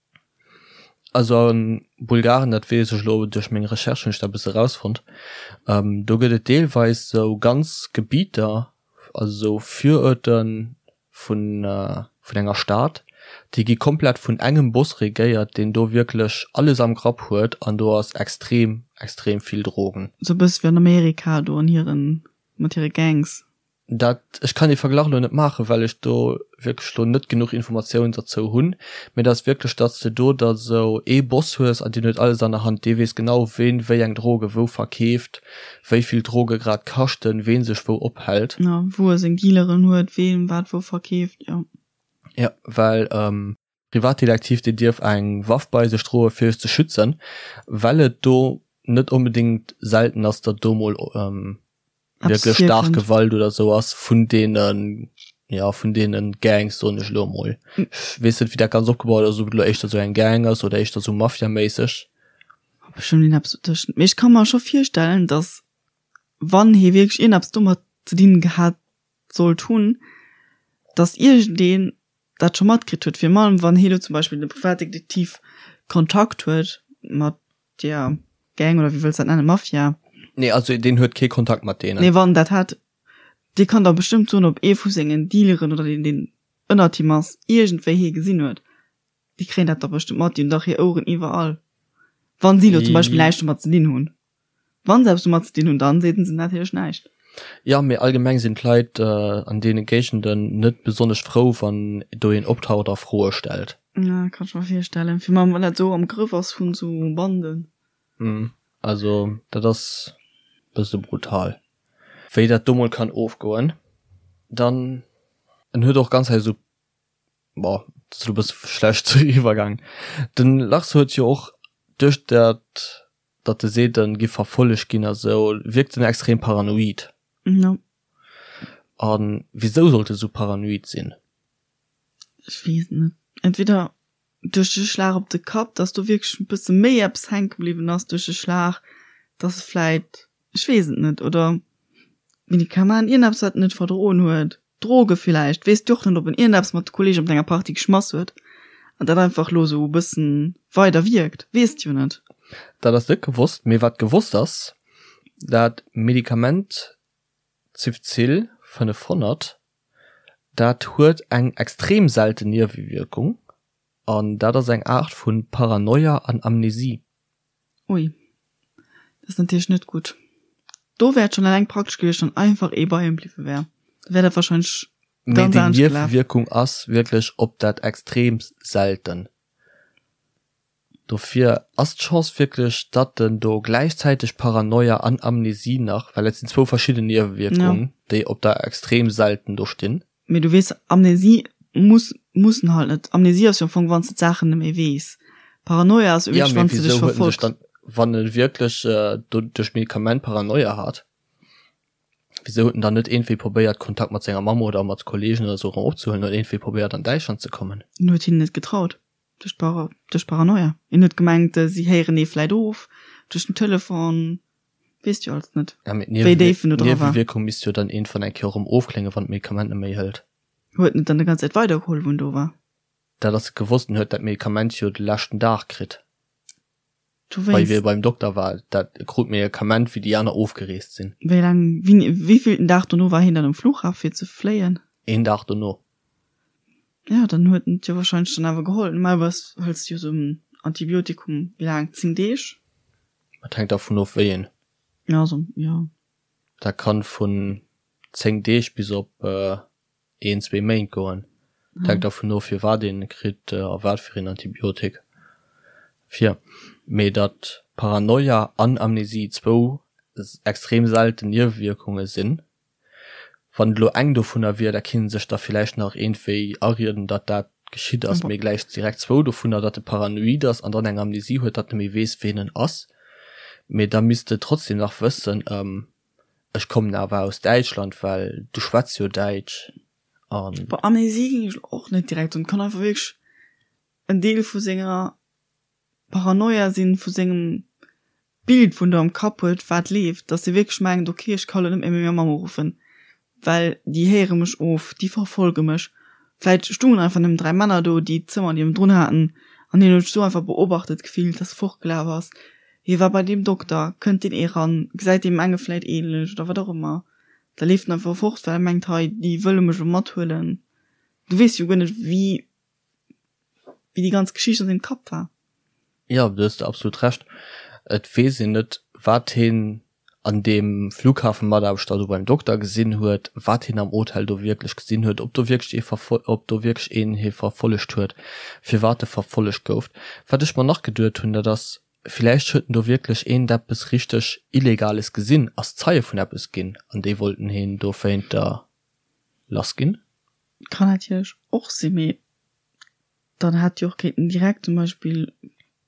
Also a Bulgarien, dat weess ech elo duerch meng Recherche hunn ech dat e bësse erausfonnt, do gëtt et deelweis esou ganz Gebieter, also esou Viruerte vun vun enger Stad, déi gi komplett vun engem Boss regéiert, deen do wierklech alles am Grapp huet an do ass extrem, extrem vill Drogen. Esou e bësse wéi an Amerika do an hiren, mat hire Gangs. Dat, ech kann dee Verglach elo net maachen, well ech do wierklech elo net genuch Informatiounen derzou hunn, mee et ass wierklech, datt s de do da sou ee Boss hues an deen huet alles an der Hand, dee weess genau, ween wéi eng Droge wou verkeeft, wéi vill Droge grad kaschten, ween sech wou ophält. Jo, wou e seng Dealeren huet, ween wat wou verkeeft, jo. Jo, well Privatdetektiv, deen dierf eng Waff bei sech droe fir sech ze schützen, well et do net onbedéngt selten ass, datt do mol wierklech staark Gewalt oder sou ass vun deene. Ja, vun deenen Gangs, soen ech elo emol. Ech weess net, wéi dat ganz opgebaut ass, ob et elo éischter esou eng Gang ass oder éischter esou Mafia-méisseg. Bestëmmt iergendeppes dotëschent. Mee ech ka mer scho virstellen, dass wann hie wierklech iergendeppes domat ze dinn gehat sollt hunn, dass iergendeen dat scho matkritt huet. Virun allem wann hie elo zum Beispill de Privatdetektiv Kontakt huet mat där Gang oder wéi wëlls dat nennen, Mafia. Nee, also deen huet kee Kontakt mat deenen. Nee, wann dat hat, Dee kann da bestëmmt soen, ob ee vu sengen Dealeren oder deen, deen ënnert him ass, iergendwéi hie gesinn huet. Déi kréien dat da bestëmmt mat, déi hunn dach hir Oueren iwwerall. Wa si elo zum Beispill näischt domat ze dinn hunn. Wa se eppes domat ze dinn hunn, dann seeten se natierlech näischt. Jo, mee allgemeng sinn d'Leit an deene Géigenden net besonnesch frou, wann do een optaucht a Froe stellt. Ja, kann ech mer virstellen. Virun allem wann dat esou am Grëff ass vun esou Banden. Also dat ass bësse brutal. Wéi dat do mol kann ofgoen. Dann en huet och ganz hei esou, bon, dat ass elo e bësse schlecht eriwwergaangen. Den Lars huet jo och duerch dat, datt e seet en giff verfollegt ginn a sou, wierkt en extrem paranoid. Jo. A wisou sollt e sou paranoid sinn? Ech weess et net. Entweder duerch de Schlag op de Kapp, dass do wierklech e bësse méi eppes hänke bliwwen ass duerch de Schlag, dass e vläit, ech weess et net, oder Medikament, iergendeppes wat en net verdroen huet, Droge villäicht, weess de och net, ob en iergendeppes mat de Kollegen op enger Party geschmass huet an dat einfach elo esou e bëssen weider wierkt, weess de jo net. Dat ass net gewosst, mee wat gewosst ass, dat Medikament Cifzil 500, dat huet eng extrem selten Niewewierkung an dat ass eng Aart vu Paranoia an Amnesie. Ui, dat ass natierlech net gutt. Do wär et schonn eleng praktesch gewiescht, wann einfach ee bei him bliwwe wär. Da wär dat warscheinlech Mee ganz déi anescht gelaf. Niewewierkung ass wierklech op dat extrem selten. Dofir ass d'Chance wierklech, datt en do gläichzäiteg Paranoia an Amnesie nach, well et sinn zwou verschidden Niewewierkungen, déi op der extrem selten do stinn. Mee du weess, Amnesie muss muss en halt net. Amnesie ass jo am Fong, wann s de d'Saachen net méi weess. Paranoia ass jo wierklech, wann s de dech verfolgt. Dann, wann e wierklech do duerch d'Medikament Paranoia hat, wisou huet en dann net iergendwéi probéiert, Kontakt mat senger Mamm oder mat Kollegen oder sou erëm opzehuelen oder iergendwéi probéiert an Däitschland ze kommen? En huet hinnen net getraut. Duerch d'Para, duerch Paranoia. Hien huet gemengt, si héieren ee vläit of duerch den Telefon. Weess jo alles net, Ja, mee wéi déif en do dra war. D'Niewewierkung misst jo dann iergendwann eng Kéier erëm ofkléngen, wann d'Medikament net méi hëlt. Huet en et dann déi ganz Zäit weidergeholl, wou en do war? Dat ass gewosst, en huet dat Medikament jo de leschten Dag kritt, bei wéi e beim Dokter war. Dat e krut d'Medikament, wéi déi aner ofgereest sinn. Wéi laang, wéini, wéivillten Dag dono war hien dann um Flughafen, fir ze fléien? Een Dag dono. Ja, dann huet en et jo wahrscheinlech dann awer geholl. Normalerweis hëls de jo sou en Antibiotikum, wéi laang, 10 Deeg? Et hänkt dervun of wéi een. Ja, also, ja. Dat kann vun 10 Deeg bis op een, zwee Méint goen. Et hänkt dervun of firwat een e kritt a wat fir een Antibiotik fir. Mee datt Paranoia an Amnesie zwou extrem selten Niewewierkunge sinn, Wann et elo eng dovunner wier, da kinnt en sech da villäicht nach iergendwéi arieden, datt dat geschitt ass, mee gläich direkt zwou dovunner, datt e paranoid ass an dann eng Amnesie huet, datt e méi weess, ween en ass. Mee da misst e trotzdem nach wëssen, ech kommen awer aus Däitschland, well du schwätz jo Däitsch an. Bon, Amnesie géing ech elo och net direkt soen. Et kann einfach wierklech en Deel vu senger Paranoia sinn, vu sengem Bild wou en do am Kapp huet wat leeft, dass e wierklech mengt, ok ech ka lo net méi meng Mamm uruffen, well déi héiere mech of, déi verfolge mech. Vläit stungen einfach nëmmen 3 Männer do, déi d'Zëmmer niewendrun haten an hien huet sech sou einfach beobachtet gefillt, dass e fortgelaf ass. Hie war bei deem Dokter, kënnt deen eran, gesäit deem enge vläit ähnlech oder wat och ëmmer. Da leeft en einfach fort, well e mengt, hei déi wëlle mech lo mathuelen. Du weess jo guer net wéi wéi déi ganz Geschicht an sengem Kapp war. Jo, do hues de absolut Recht. Et weess een net, wat heen an deem Flughafenmataarbechter do beim Dokter gesinn huet, wat heen am Hotel do wierklech gesinn huet, ob do wierklech ee verfol-, ob do wierklech een hie verfollegt huet, firwat e verfollegt gouf. Wat ech mer nach geduet hunn, dat ass, villäicht huet en do wierklech eent eppes richteg Illegales gesinn, ass Zeie vun eppes ginn an déi wollten heen dowéinter lass ginn. Kann natierlech och sinn, mee dann hätt jo och kéinten direkt zum Beispill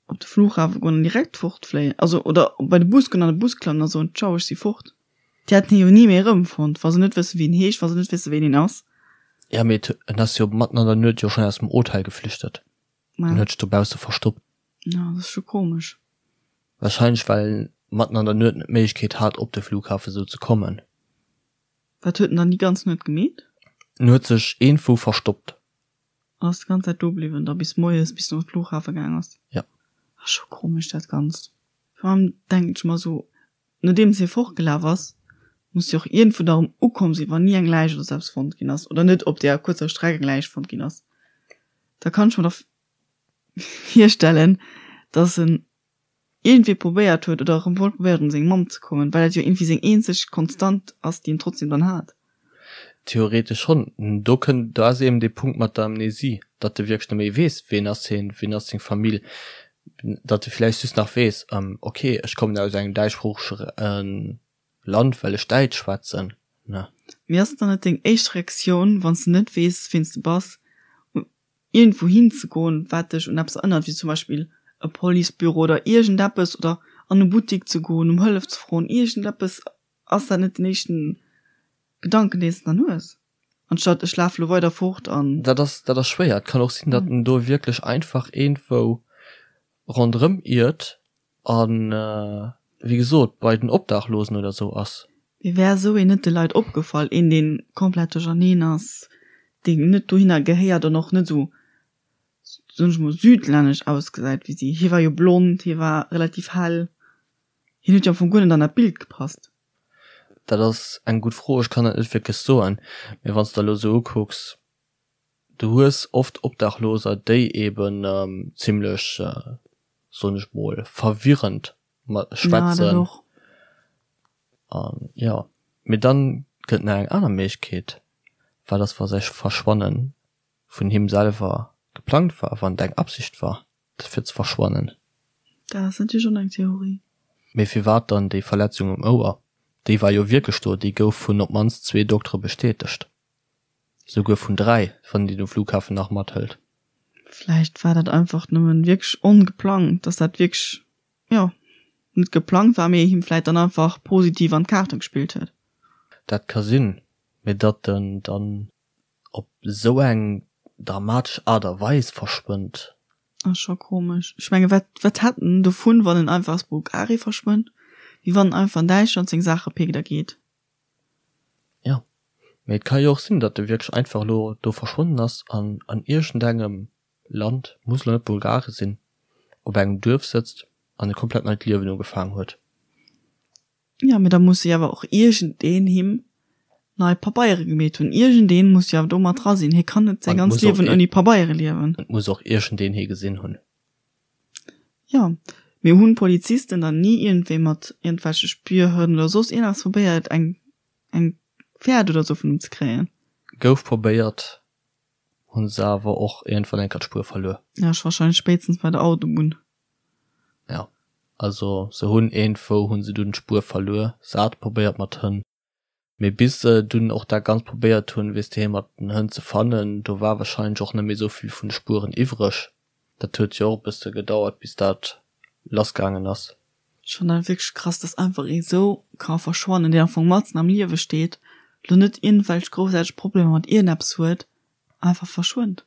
op de Flughafe goen an direkt fortfléien, also oder bei de Bus goen an de Bus klammen a soen, Ciao, ech si fort. Déi hätten hie jo ni méi erëmfonnt, wa se net wësse wéi en heescht, wa se net wësse ween een ass. Ja, mee en ass jo matten an der Nuet jo schonn aus dem Hotel geflüchtet. En huet sech dobausse verstoppt. Ja, dat ass scho komesch. Wahrscheinlech well en matten an der Nuet net d'Méiglechkeet hat op de Flughafen sou ze kommen. Wat huet en dann déi ganz Nuet gemeet? En huet sech eenfou verstoppt. An ass déi ganz Zäit do bliwwen da bis moies, bis en op de Flughafe gaang ass? Ja. Ass scho komesch dat Ganzt. Vor allem denken ech mer sou, nodeems hie fortgelaf ass, muss jo och iergendwou da erëm ukomm sinn, wann ni eng Läich oder sou eppes fonnt ginn ass oder net op deeër kuerzer Streck eng Läich fonnt ginn ass. Da kann ech mer da virstellen, dass en iergendwéi probéiert huet oder erëm wollt probéieren un seng Mamm ze kommen, well dat jo iergendwéi seng eenzeg Konstant ass, déi en trotzdem dann hat. Theoretesch schonn. Do kënnt, do ass eben dee Punkt mat der Amnesie, datt e wierklech net méi weess, ween ass hien, ween ass seng Famill, datt e vläicht just nach weess, ok, ech kommen aus engem däitschsproochege Land, well ech Däitsch schwätzen, ne. Mee ass et dann net deng éischt Reaktioun, wann s de net weess, ween s de bass, iergendwou hinzegoen, wat dech un eppes erënnert, wéi zum Beispill e Policebüro oder iergendeppes, oder an e Buttik ze goen, ëm Hëllef ze froen, iergendeppes, ass dat net den éischten Gedanken, deen s de dann hues, anstatt ech lafe lo weider fort an. Dat ass, dat ass schwéier. Et kann och sinn, datt en do wierklech einfach iergendwou ronderëm iert an, wéi gesot, bei den Obdachlosen oder sou ass. Mee wär esou een net de Leit opgefall, een deen komplett duercherneen ass, deen net dohinner gehéiert an och net esou, soen ech mol, südlännesch ausgesäit wéi si? Hie war jo blond, hie war relativ hell, hien huet jo am Fong guer net an dat Bild gepasst. Dat ass eng gutt Fro, ech kann dat net wierklech soen. Mee wann s de elo esou ukucks, Du hues oft Obdachloser, déi eben zimlech, soen ech mol, verwirrend schwätzen. An jo, mee dann gëtt nach eng aner Méiglechkeet, wat ass wa säi Verschwannen vun him selwer geplangt war, wann et eng Absicht war fir ze verschwannen? Dat ass natierlech och eng Theorie. Mee firwat dann déi Verletzung um Ouer? Déi war jo wierklech do, déi gouf vun op d'mannst zwee Doktere bestätegt. Souguer vun 3, wann een déi um Flughafen nach mathëlt. Vläicht war dat einfach nëmmen wierklech ongeplangt, dass dat wierklech, jo, net geplangt war, mee him vläicht dann einfach positiv an d'Kaarte gespillt huet. Dat ka sinn, mee datt en dann op esou eng dramatesch Aart a Weis verschwënnt. Ass scho komesch. Ech menge wat, wat hätt en dovun, wann en einfach aus Bulgarie verschwënnt, wéi wann en einfach an Däitschland seng Saache péckt a geet? Jo, mee et ka jo och sinn, datt e wierklech einfach elo do verschwonnen ass an an iergendengem Land, muss elo net Bulgarien sinn, op engem Duerf sëtzt an e komplett neit Liewen ugefaang huet. Jo, mee da muss jo awer och iergendeen him nei Pabeiere gemeet hunn. Iergendeen muss jo awer do mat dra sinn. Hie kann net säi ganzt Liewen ouni Pabeiere liewen. Et muss och iergendeen hie gesinn hunn. Jo, mee hunn d'Polizisten dann ni iergendwéi mat iergendwelche Spürhënn oder soss iergendeppes probéiert eng eng Fäert oder sou vun him ze kréien? Gouf probéiert, hunn se awer och iergendwann eng Kéier d'Spuer verluer. Ja, ech wahrscheinlech spéitstens bei der Autobunn. Ja, also se hunn iergendwou hunn se dunn d'Spuer verluer, se hate probéiert mat Hënn. Mee bis se dunn och dat Ganzt probéiert hunn, weess de, hie mat den Hënn ze fannen, do war wahrscheinlech och net méi esou vill vun de Spueren iwwreg. Dat huet jo och e bësse gedauert, bis dat lassgaangen ass. Ech fannen dat wierklech krass, dass einfach ee sou ka verschwannen, deen am Fong matzen am Liewe steet, lo net iergendwelch groussaarteg Problemer mat iergendeppes huet, einfach verschwënnt.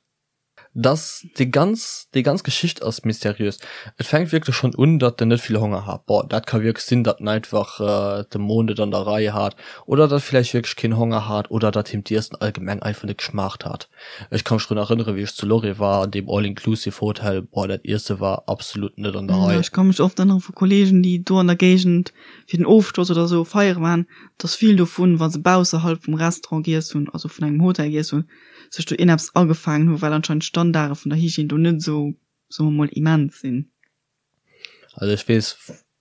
Dass déi ganz, déi ganz Geschicht ass mysteriös. Et fänkt wierklech schonn un, datt en net vill Honger hat. Bon, dat ka wierklech sinn, datt en einfach de Mo net an der Rei hat oder datt e vläicht wierklech keen Honger hat oder datt him d'Iessen allgemeng einfach net geschmaacht hat. Ech ka mech drun erënneren, wéi ech zu Lorry war, an deem All-inclusive-Hotel, boah, dat Iesse war absolut net an der Rei. Ech ka mech oft erënnere vu Kollegen, déi do an der Géigend fir den Ofschloss oder esou feiere waren, datt vill dovun, wa se bausserhalb vum Restaurant giess hunn, also vun engem Hotel giess hunn, sech do ierneppes agefaangen hu well anscheinend d'Standarde vun der Hygiène do net esou, soe mer mol, immens sinn. Also ech weess,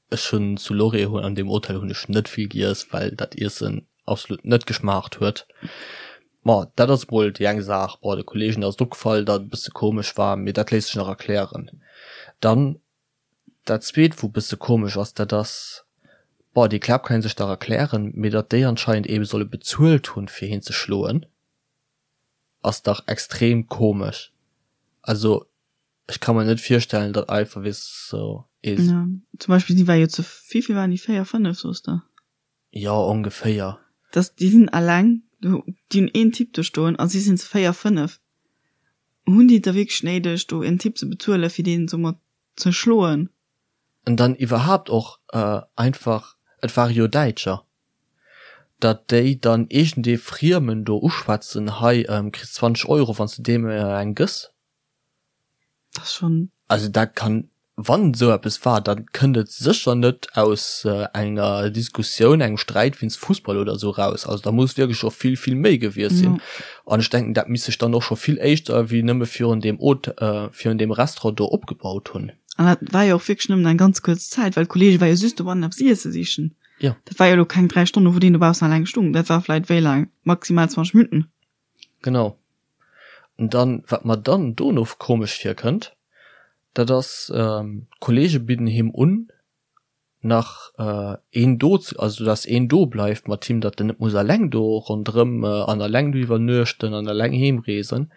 ech hunn zu Lorry an deem Hotel hunn ech net vill giess, well dat Iessen absolut net geschmaacht huet. Ma dat ass mol déi eng Saach. Bon, de Kollegen ass et opgefall, datt et e bësse komesch war, mee dat léisst sech nach erklären. Dann dat zweet, wou e bësse komesch ass, dat ass, bon, déi Klaap kann ee sech nach erklären, mee datt déi anscheinend eebe solle bezuelt hunn, fir hien ze schloen. Ass dach extrem komesch. Also ech ka mer net virstellen datt einfach weess sou ee. Ja, zum Beispill si war jo zu, wéivill waren déi, 4, 5 soos de? Jo ongeféier. Dass déi sinn alleng. Déi hunn een Typ do stoen a si sinn zu 4, 5. Hunn déi et da wierklech néideg, do en Typ ze bezuelen, fir deen esou mat ze schloen? An dann iwwerhaapt och einfach, et ware jo Däitscher, datt déi dann iergendee Friemen do uschwätzen, hei kriss 20 Euro wann s de deem eng gëss. Dat ass schonn. Also dat kann, wann esou eppes war, da kënnt et sécher net aus enger Diskussioun, engem Sträit wéinst Fussball oder esou eraus. Also da muss wierklech scho vill, vill méi gewiescht sinn. An ech denken, dat misst sech dann och scho vill éischter wéi nëmme virun deem Hôtel, virun deem Restaurant do opgebaut hunn. An dat war jo och wierklech nëmmen eng ganz kuerz Zäit, well d'Kolleege war jo just dobannen eppes iesse sichen. Jo. Dat war jo elo keng 3 Stonnen, wou deen dobaussen alleng stung. Dat war vläit wéi laang? Maximal 20 Minutten. Genau. An dann, wat mer dann dono komesch virkënnt, dat ass, d'Kolleege bidden him un, nach een do ze, also dass een do bleift mat him, datt en net muss alleng do ronderëm an alleng do iwwernuechten an alleng heemreesen,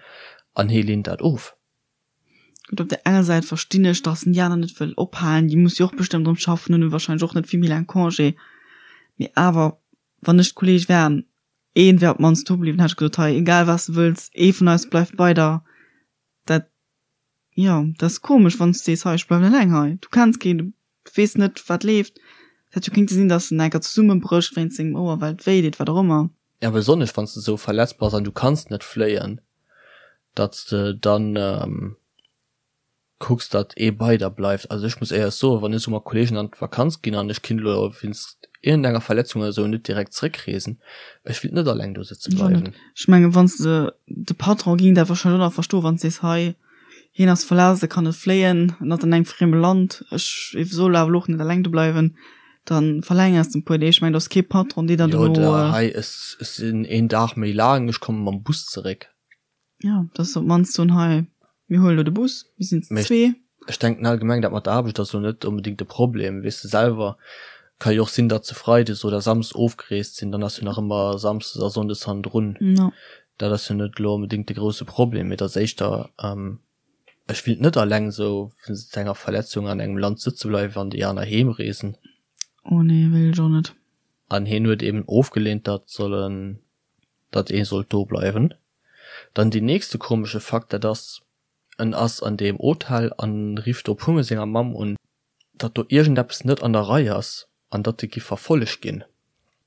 an hie leent dat of. Gutt, op der enger Säit verstinn ech, dass en déi aner net wëll ophalen, déi musse jo och bestëmmt erëm schaffen, hunn warscheinlech och net vill méi laang Congé, mee awer, wann ech d'Kolleeg wären, een wär op d'mannst do bliwwen, hätt ech gesot, hei, egal wat s de wëlls, ee vun eis bleift bei der. Dat, jo, dat ass komesch, wann s de sees, hei, ech bleiwen eleng hei, du kenns keen, du weess net, wat leeft. Et hätt jo kéinte sinn, dass en enker zesummebrécht wéinst sengem Ouer, well et wéi deet, wat och ëmmer. Ja, besonnesch wann s de esou verletzt bass an du kanns net fléien, datt s de dann kucks, datt ee bei der bleift. Also ech muss éierlech soen, wann ech esou mat Kolleegen an d'Vakanz ginn an ech kinnt elo wéinst iergendenger Verletzung oder esou net direkt zréckreesen, ech willt net alleng do sëtze bleiwen. Ech mengen, wann s de, de Patron géing dat warscheinlech och nach verstoen, wann s de sees, hei, hien ass verletzt, e kann net fléien, en ass an engem frieme Land, ech soll awer elo och net alleng do bleiwen. Dann verlängers de e puer Deeg. Ech mengen, do ass kee Patron, dee dann dono. Jo, oder hei, ech sinn een Dag méi laang, ech komme mam Bus zeréck. Jo, dass se op d'mannst soen, hei, mir huelen elo de Bus, mir sinn zu zwee. Ech denken allgemeng, dat mat der Aarbecht ass elo net onbedéngt de Problem. Weess de selwer, ka jo och sinn, datt se freides oder samsdes ofgereest sinn, dann ass jo nach ëmmer samsdes a sonndes hannendrun. Dat ass jo net elo onbedéngt de grousse Problem, mee et ass éischter, Ech willt net alleng sou wéinst enger Verletzung an engem Land sëtze bleiwen an déi aner heem reesen. Oh nee, wéilt ech och net. An hien huet eben ofgeleent, datt sollen, datt ee sollt do bleiwen. Dann deen nächste komesche Fakt, dat ass, en ass an deem Hotel an rifft do puermol senger Mamm un, datt do iergendeppes net an der Rei ass an datt e giff verfollegt ginn.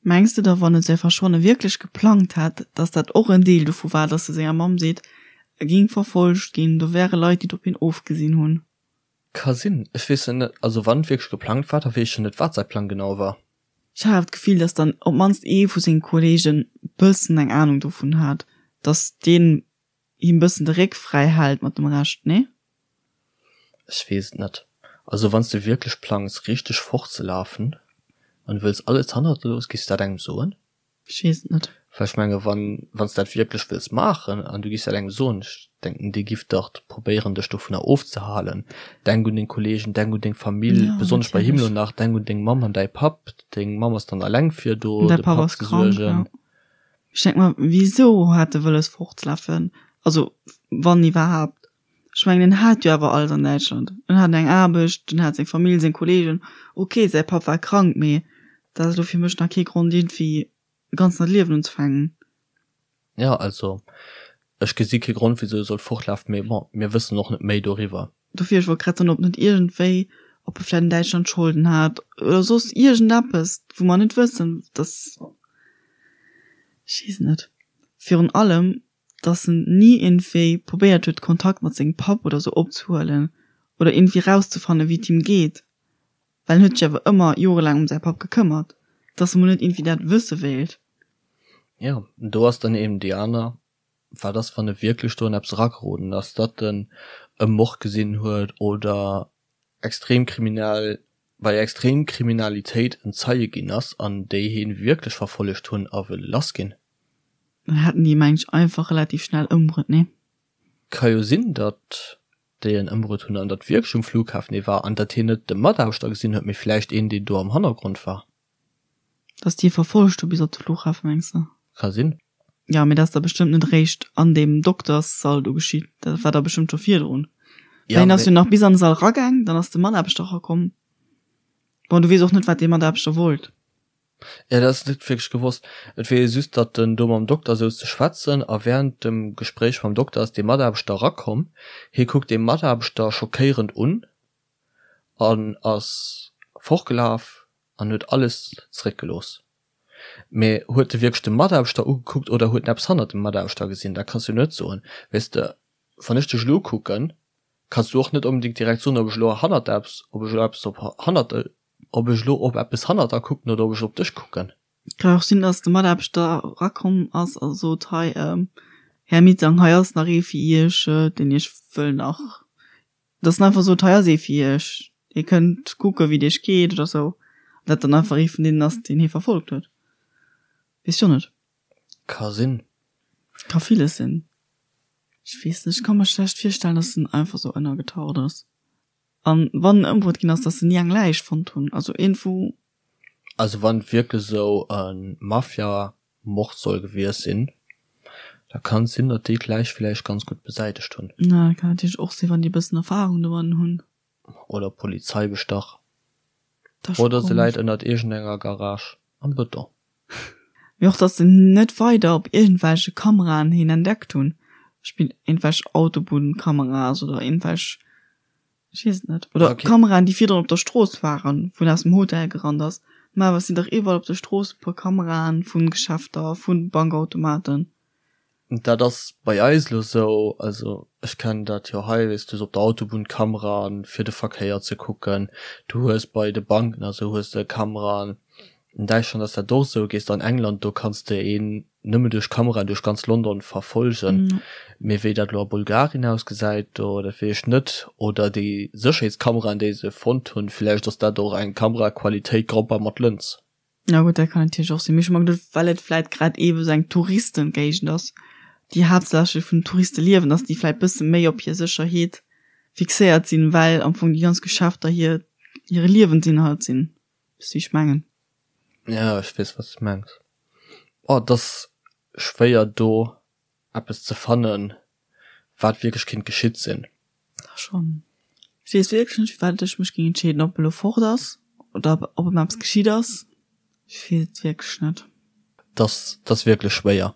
Mengs de da, wann e säi Verschwanne wierklech geplangt hätt, datt dat och en Deel dovu war, datt e senger Mamm seet, e ging verfollegt ginn, do wäre Leit, déi et op hien ofgesinn hunn? Ka sinn, ech weess et net. Also wann et wierklech geplangt war, da weess ech jo net, wat säi Plang genau war. Ech hat awer d'Gefill, datt dann op d'mannst ee vu senge Kolleegen bëssen eng Anung dovun hat, datt deen him bëssen de Réck fräi hält mat dem Rescht, nee? Ech weess et net. Also wanns de wierklech plangs richteg fortzelafen an wëlls alles hannert der loossen, giffs de dat engem soen? Ech weess et net. Well ech menge wann wanns de dat wierklech wëlls maachen an du giffs dat engem soen, ech denken dee giff dach probéieren dech dovunner ofzehalen. Denk un deng Kollegen, denk un deng Famill, Ja, besonnesch bei him natierlech. lo nach, denk un deng Mamm an däi Papp, deng Mamm ass dann alleng fir do Däi de Papp Papp ass ze krank, suergen. ja. Ech denk mer, wisou hat e wëlles fortzelafen? Also, wann iwwerhaapt. Ech mengen, en hat jo awer alles an Däitschland. En hat eng Aarbecht, en hat seng Famill, seng Kollegen. Ok, säi Papp war krank, mee dat ass elo fir mech nach kee Grond, iergendwéi e ganz neit Liewen unzefänken. Jo, also ech gesi kee Grond, wisou e sollt fortlafen, mee bon, mir wëssen och net méi doriwwer. Dofir, ech wollt grad soen, ob net iergendwéi, ob e vläicht an Däitschland Scholden hat oder soss iergendeppes, wou mer net wëssen, dass, ech weess et net. Virun allem, dass en ni iergendwéi probéiert huet, Kontakt mat sengem Papp oder sou opzehuelen oder iergendwéi rauszefannen, wéi et him geet, well en huet sech awer ëmmer jorelaang ëm säi Papp gekëmmert, dass e mol net iergendwéi dat wësse wéilt. Jo, do ass dann eben déi aner Wat ass wann e wierklech do an eppes erageroden ass, datt en e Mord gesinn huet oder extrem kriminell, bei extrem Kriminalitéit en Zeie ginn ass an déi hien wierklech verfollegt hunn a wëlle lass ginn? Dann hätten déi mengen ech einfach relativ schnell ëmbruet, nee? Ka jo sinn, datt déi en ëmbruet hunn an datt wierklech um Flughafen ee war an datt hien net de Mataarbechter gesinn huet, mee vläicht een deen do am Hannergrond war. Dass déi e verfollegt hu bis op de Flughafen, mengs de? Ka sinn. Jo, mee dat ass da bestëmmt net eréischt an deem Dokterssall do geschitt. Dat war da bestëmmt scho virdrun. Well hien ass jo nach bis an de Sall eragaang, dann ass de Mataarbechter erakomm. Bon, du weess och net, wat dee Mataarbechter wollt. Ja, dat ass net wierklech gewosst. Et weess ee just, datt en do mam Dokter souz ze schwätzen a wärend dem Gespréich mam Dokter ass dee Mataarbechter erakomm. Hie kuckt dee Mataarbechter schockéierend un an ass fortgelaf an huet alles zeréckgelooss. Mee huet e wierklech de Mataarbechter ugekuckt oder huet en eppes hannert dem Mataarbechter gesinn? Dat kanns du net soen. Weess de, wann ech dech elo ukucken, kanns du och net onbedéngt direkt soen, ob ech elo hannert eppes, ob ech elo eppes op hannert, ob ech elo op eppes hannert der kucken oder ob ech op dech kucken. Kann och sinn, dass de Mataarbechter erakomm ass a sot, Hei, Här Mitang, hei ass nach ee fir Iech, deen Iech wëll nach Dass en einfach sot, hei ass ee fir iech, dir kënnt kucke wéi et iech geet oder sou. An dat dann einfach ee vun deenen ass, deen hie verfollegt huet. Weess jo net. Ka sinn. Ka villes sinn. Ech weess net, ech ka mer schlecht virstellen, dass en einfach sou ënnergetaucht ass. An wann en ëmbruet ginn ass, dass se ni eng Läich fonnt hunn. Also iergendwou. Also wann et wierklech esou e Mafia Mord soll gewiescht sinn, da kann et sinn, datt déi d'Läich villäicht ganz gutt besäitegt hunn. Na, dat kann natierlech och sinn, wann déi e bëssen Erfahrung domatten hunn. Oder Polizei bestach. Oder se läit ënnert iergendenger Garage am Bëton. Mee och, datt se net weider op iergendwelche Kameraen hien entdeckt hunn, iergendwelch Autobunnkameras oder iergendwelch Ech weess et net. Oder okay. Kameraen, déi virdrun op der Strooss waren, wou en aus dem Hotel gerannt ass. Mä awer et sinn dach iwwerall op de Strooss e puer Kameraen vu Geschäfter, vu Bankautomaten. Dat ass bei eis elo esou, also ech kennen dat jo hei, weess du hues op der Autobunn Kameraen fir de Verkéier ze kucken, du hues bei de Banken a sou hues de Kameraen. An Däitschland ass dat och esou. Gees de an England, do kanns de een nëmme duerch Kameraen duerch ganz London verfolgen. Mee wéi dat elo a Bulgarien ausgesäit, do, dat weess ech net. Oder déi Sécherheetskameraen, déi se fonnt hunn, villäicht ass dat och eng Kameraqualitéit Gromper mat Lëns. Jo gutt, dat kann natierlech och sinn. Mee ech hu mer geduecht, well et vläit grad eebe sou eng Touristengéigend ass, déi haaptsächlech vun Touriste liewen, datt déi vläit bësse méi op hir Sécherheet fixéiert sinn, well am Fong déi ganz Geschäfter hir hire Liewensinhalt sinn. Weess wéi ech mengen? Ja, ech weess wat s de mengs. Oh, et ass schwéier do eppes ze fannen, wat wierklech kinnt geschitt sinn. Da schonn. Ech weess wierklech net firwat ech mech géing entscheeden, ob e lo fort ass oder ob em eppes geschitt ass. Ech weess et wierklech net. Et ass, et ass wierklech schwéier.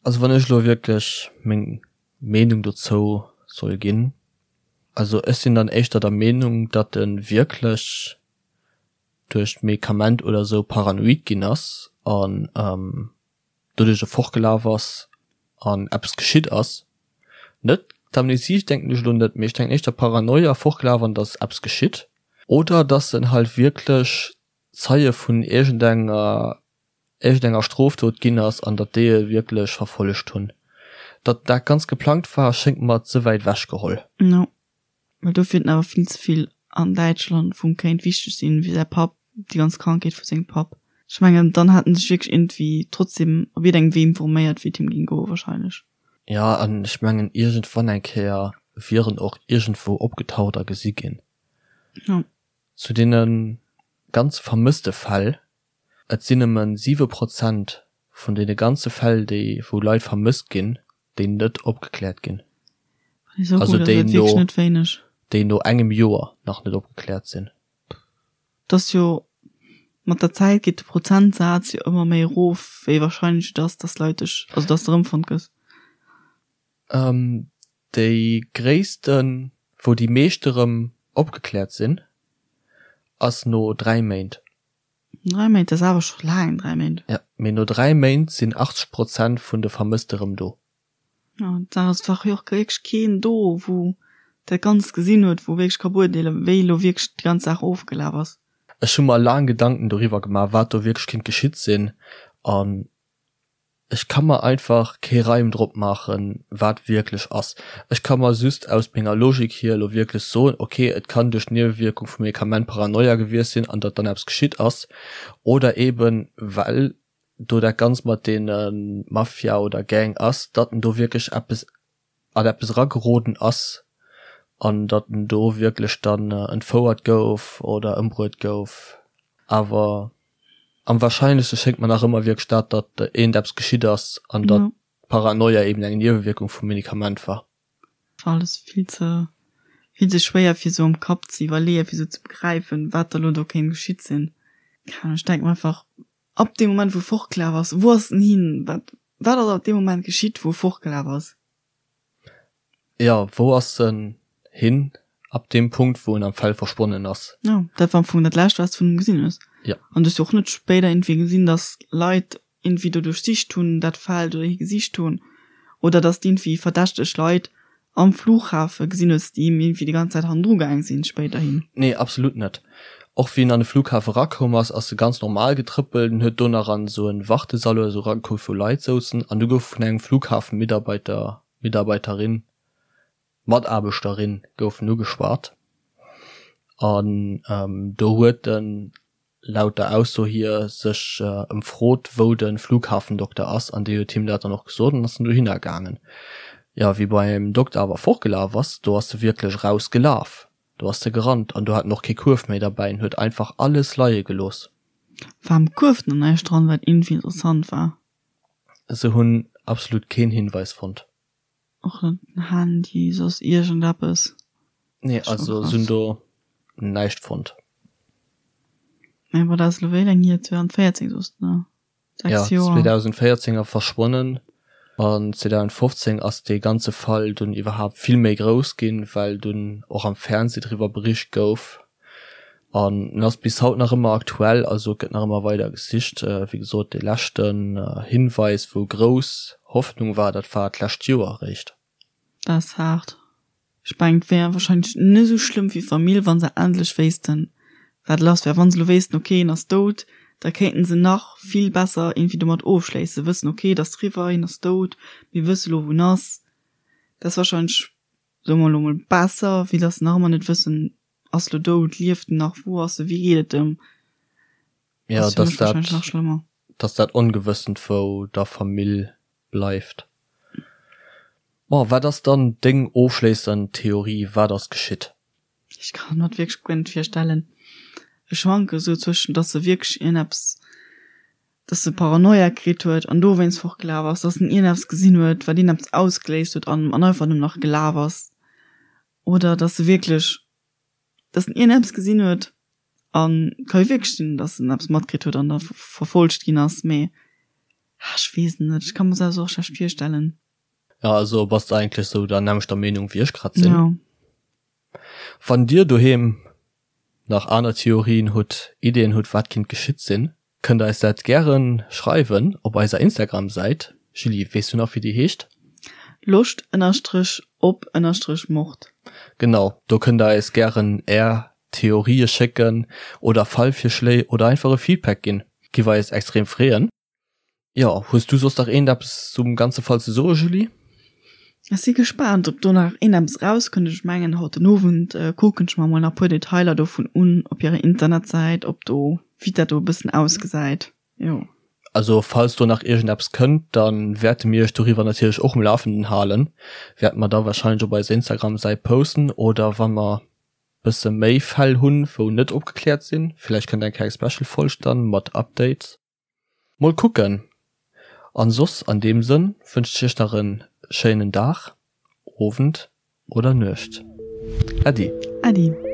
Also wann ech elo wierklech meng Meenung dozou soll ginn, also ech sinn dann éischter der Meenung, datt e wierklech duerch d'Medikament oder sou paranoid ginn ass an doduerch e fortgelaf ass an eppes geschitt ass. Net d'Amnesie denken ech elo net, mee ech denken éischter Paranoia, fortgelaf an dass eppes geschitt. Oder dass en halt wierklech Zeie vun iergendenger iergendenger Strofdot ginn ass an datt déi e wierklech verfollegt hunn. Datt dat ganz geplangt war, schéngt mer ze wäit ewech geholl. No. Well dofir huet en awer vill ze vill an Däitschland, wou em kéint wichteg sinn, wéi säi Papp, déi ganz Krankheet vu sengem Papp. Ech mengen, dann hätt en sech wierklech iergendwéi trotzdem op iergendengem Wee informéiert, wéi et him géing goen wahrscheinlech. Jo, an ech mengen, iergendwann eng Kéier wier en och iergendwou opgetaucht a gesi ginn. Jo. Zu deene ganze vermësste Fäll, Et sinn nëmme 7 Prozent vun deene ganze Fäll, déi wou Leit vermësst ginn, déi net opgekläert ginn. Also déi no, déi no engem Joer nach net opgekläert sinn. Et ass jo, mat der Zäit geet de Prozentsaz jo ëmmer méi erof, wéi wahrscheinlech et ass, dass Leit dech, also dass de erëmfonnt gëss. Déi gréissten, wou déi meescht erëm opgekläert sinn, ass no 3 Méint. 3 Méint, dat ass awer scho laang, 3 Méint. Jo, mee no 3 Méint sinn 80 Prozent vun de Vermësste rëm do. Jo, da ass dach jo och wierklech keen do, wou dat Ganzt gesinn huet, wou wierklech ka beurteelen, wéi elo wierklech déi ganz Saach ofgelaf ass. Ech hu mer laang Gedanken doriwwer gemaach, wat do wierklech kinnt geschitt sinn an Ech ka mer einfach kee Reim drop maachen, wat wierklech ass. Ech ka mer just aus menger Logik hier elo wierklech soen, ok, et kann duerch d'Niewewierkung vum Medikament Paranoia gewiescht sinn an datt dann eppes geschitt ass, oder eben well do dat Ganzt mat deene Mafia oder Gang ass, datt en do wierklech eppes an eppes erageroden ass an datt en do wierklech dann entfouert gouf oder ëmbruet gouf. Awer am wahrscheinlechste schéngt mer nach ëmmer wierklech dat, datt iergendeppes geschitt ass an datt d'Paranoia eben eng Niewewierkung vum Medikament war. War alles vill ze, vill ze schwéier fir sou am Kapp ze iwwerleeën, fir sou ze begräifen, wat da lo do kéint geschitt sinn. Keng Ahnung, ech denke mer einfach. Ab deem Moment, wou e fortgelaf ass, wou ass en hin? Wat, wat ass ab deem Moment geschitt, wou e fortgelaf ass? Jo, wou ass en hin ab deem Punkt, wou en am Feld verschwonnen ass? Jo, dat war am Fong dat Lescht, wat s de vun him gesinn hues. Jo. An du hues jo och net spéider iergendwéi gesinn, dass Leit iergendwéi do duerchsicht hunn, dat Feld oder hie gesicht hunn. Oder dass d'iergendwéi verdächteg Leit am Flughafe gesinn hues, déi him iergendwéi déi ganz Zäit hannendru gaang sinn spéiderhin. Nee, absolut net. Och wéi en an de Flughafe rakoum ass, ass e ganz normal getrëppelt. En huet do nach an esou en Wartesall oder esou eragekuckt, wou Leit souzen. An du gouf vun engem Flughafenmitarbeiter, Mitarbeiterin, Mataarbechterin gouf en ugeschwat. An do huet en laut der Ausso hier sech ëmfrot wou de Flughafendokter ass an dee huet him dat dann och gesot an ass dann dohinner gaangen. Jo, wéi beim Dokter awer fortgelaf ass, do ass e wierklech eraus gelaf, do ass e gerannt an do hat en och kee Kuerf méi derbäi, en huet einfach alles leie gelooss. War am Kuerf dann näischt dran, wat iergendwéi interessant war? Se hunn absolut keen Hinweis fonnt. Och net den Handy, soss iergendeppes. Nee, also se hunn do näischt fonnt. Mä wat ass elo wéi laang hier? 2014 soss de, ne? 6 Joer. Ja, 2014 a verschwonnen an 2015 ass dee ganze Fall dunn iwwerhaapt vill méi grouss ginn, well dunn och am Fernseh driwwer bericht gouf. An en ass bis haut nach ëmmer aktuell, also et gëtt nach ëmmer weider gesicht. Wéi gesot, dee leschten Hinweis, wou grouss Hoffnung war, dat war d'lescht Joer eréischt. Dat ass haart. Ech mengen, et wär warscheinlech net esou schlëmm fir d'Famill, wa se endlech wéissten, wat lass wär. Wa se elo wéissten, ok, en ass dout, da kéinten se nach vill besser iergendwéi domat ofschléissen, wëssen, ok, et ass eriwwer, hien ass dout, mir wësse lo, wou en ass. Dat ass warscheinlech, soe mer elo mol, besser, wéi datt se nach ëmmer net wëssen, Ass lo dout, lieft en nach, wou ass e, wéi geet et em? Ja, Ass fir dass mech wahrscheinlech dat, nach schlëmmer. dass dat Ongewëssent wou der Famill bleift. Bon, wat ass dann deng ofschléissend Theorie, wat ass geschitt? Ech kann mer et wierklech guer net virstellen. Ech schwanke sou zwëschen, dass se wierklech ierneppes, dass se Paranoia kritt huet an dowéinst fortgelaf ass, dass en ierneppes gesinn huet, wat ierneppes ausgeléist huet an an einfach nëmmen nach gelaf ass. Oder dass se wierklech, dass en iergendeppes gesinn huet an ka jo wierklech sinn, dass en eppes matkritt huet an da verfolgt ginn ass, mee ech weess et net, ech ka mer se och schlecht virstellen. Jo, also bass de eigentlech sou der nämmlechter Meenung wéi ech grad sinn. Jo. Wann dir doheem nach aner Theorien hutt, Ideeën hutt wat kinnt geschitt sinn, Kënnt eis dat gären schreiwen op eiser Instagram Säit. Julie, weess du nach wéi déi heescht? Loscht ënnerstrech op ënnerstrech Mord. Genau, do kënnt der eis gären är Theorië schécken oder Fallvirschléi oder einfach e Feedback ginn. Giff eis extrem freeën. Jo, hues du soss nach iergendeppes zum ganze Fall ze soe Julie? Ech si gespaant op do nach iergendeppes erauskënnt. Ech mengen haut den Owend kucken ech mer mol nach puer Detailer dovun un op hirer Internetsäit, ob do wéi dat do e bëssen ausgesäit. Jo. Also falls do nach iergendeppes kënnt, da wäerte mir iech doriwwer natierlech och um Lafenden halen. Wäerte mer da warscheinlech op eiser Instagram-Säit posten oder wa mer bësse méi Fäll hunn, wou net opgekläert sinn, villäicht kënnt eng kleng Special-Folg dann mat Updates. Mol kucken. An soss an deem Sënn wënschen ech iech nach en schéinen Dag, Owend oder Nuecht. Äddi. Äddi.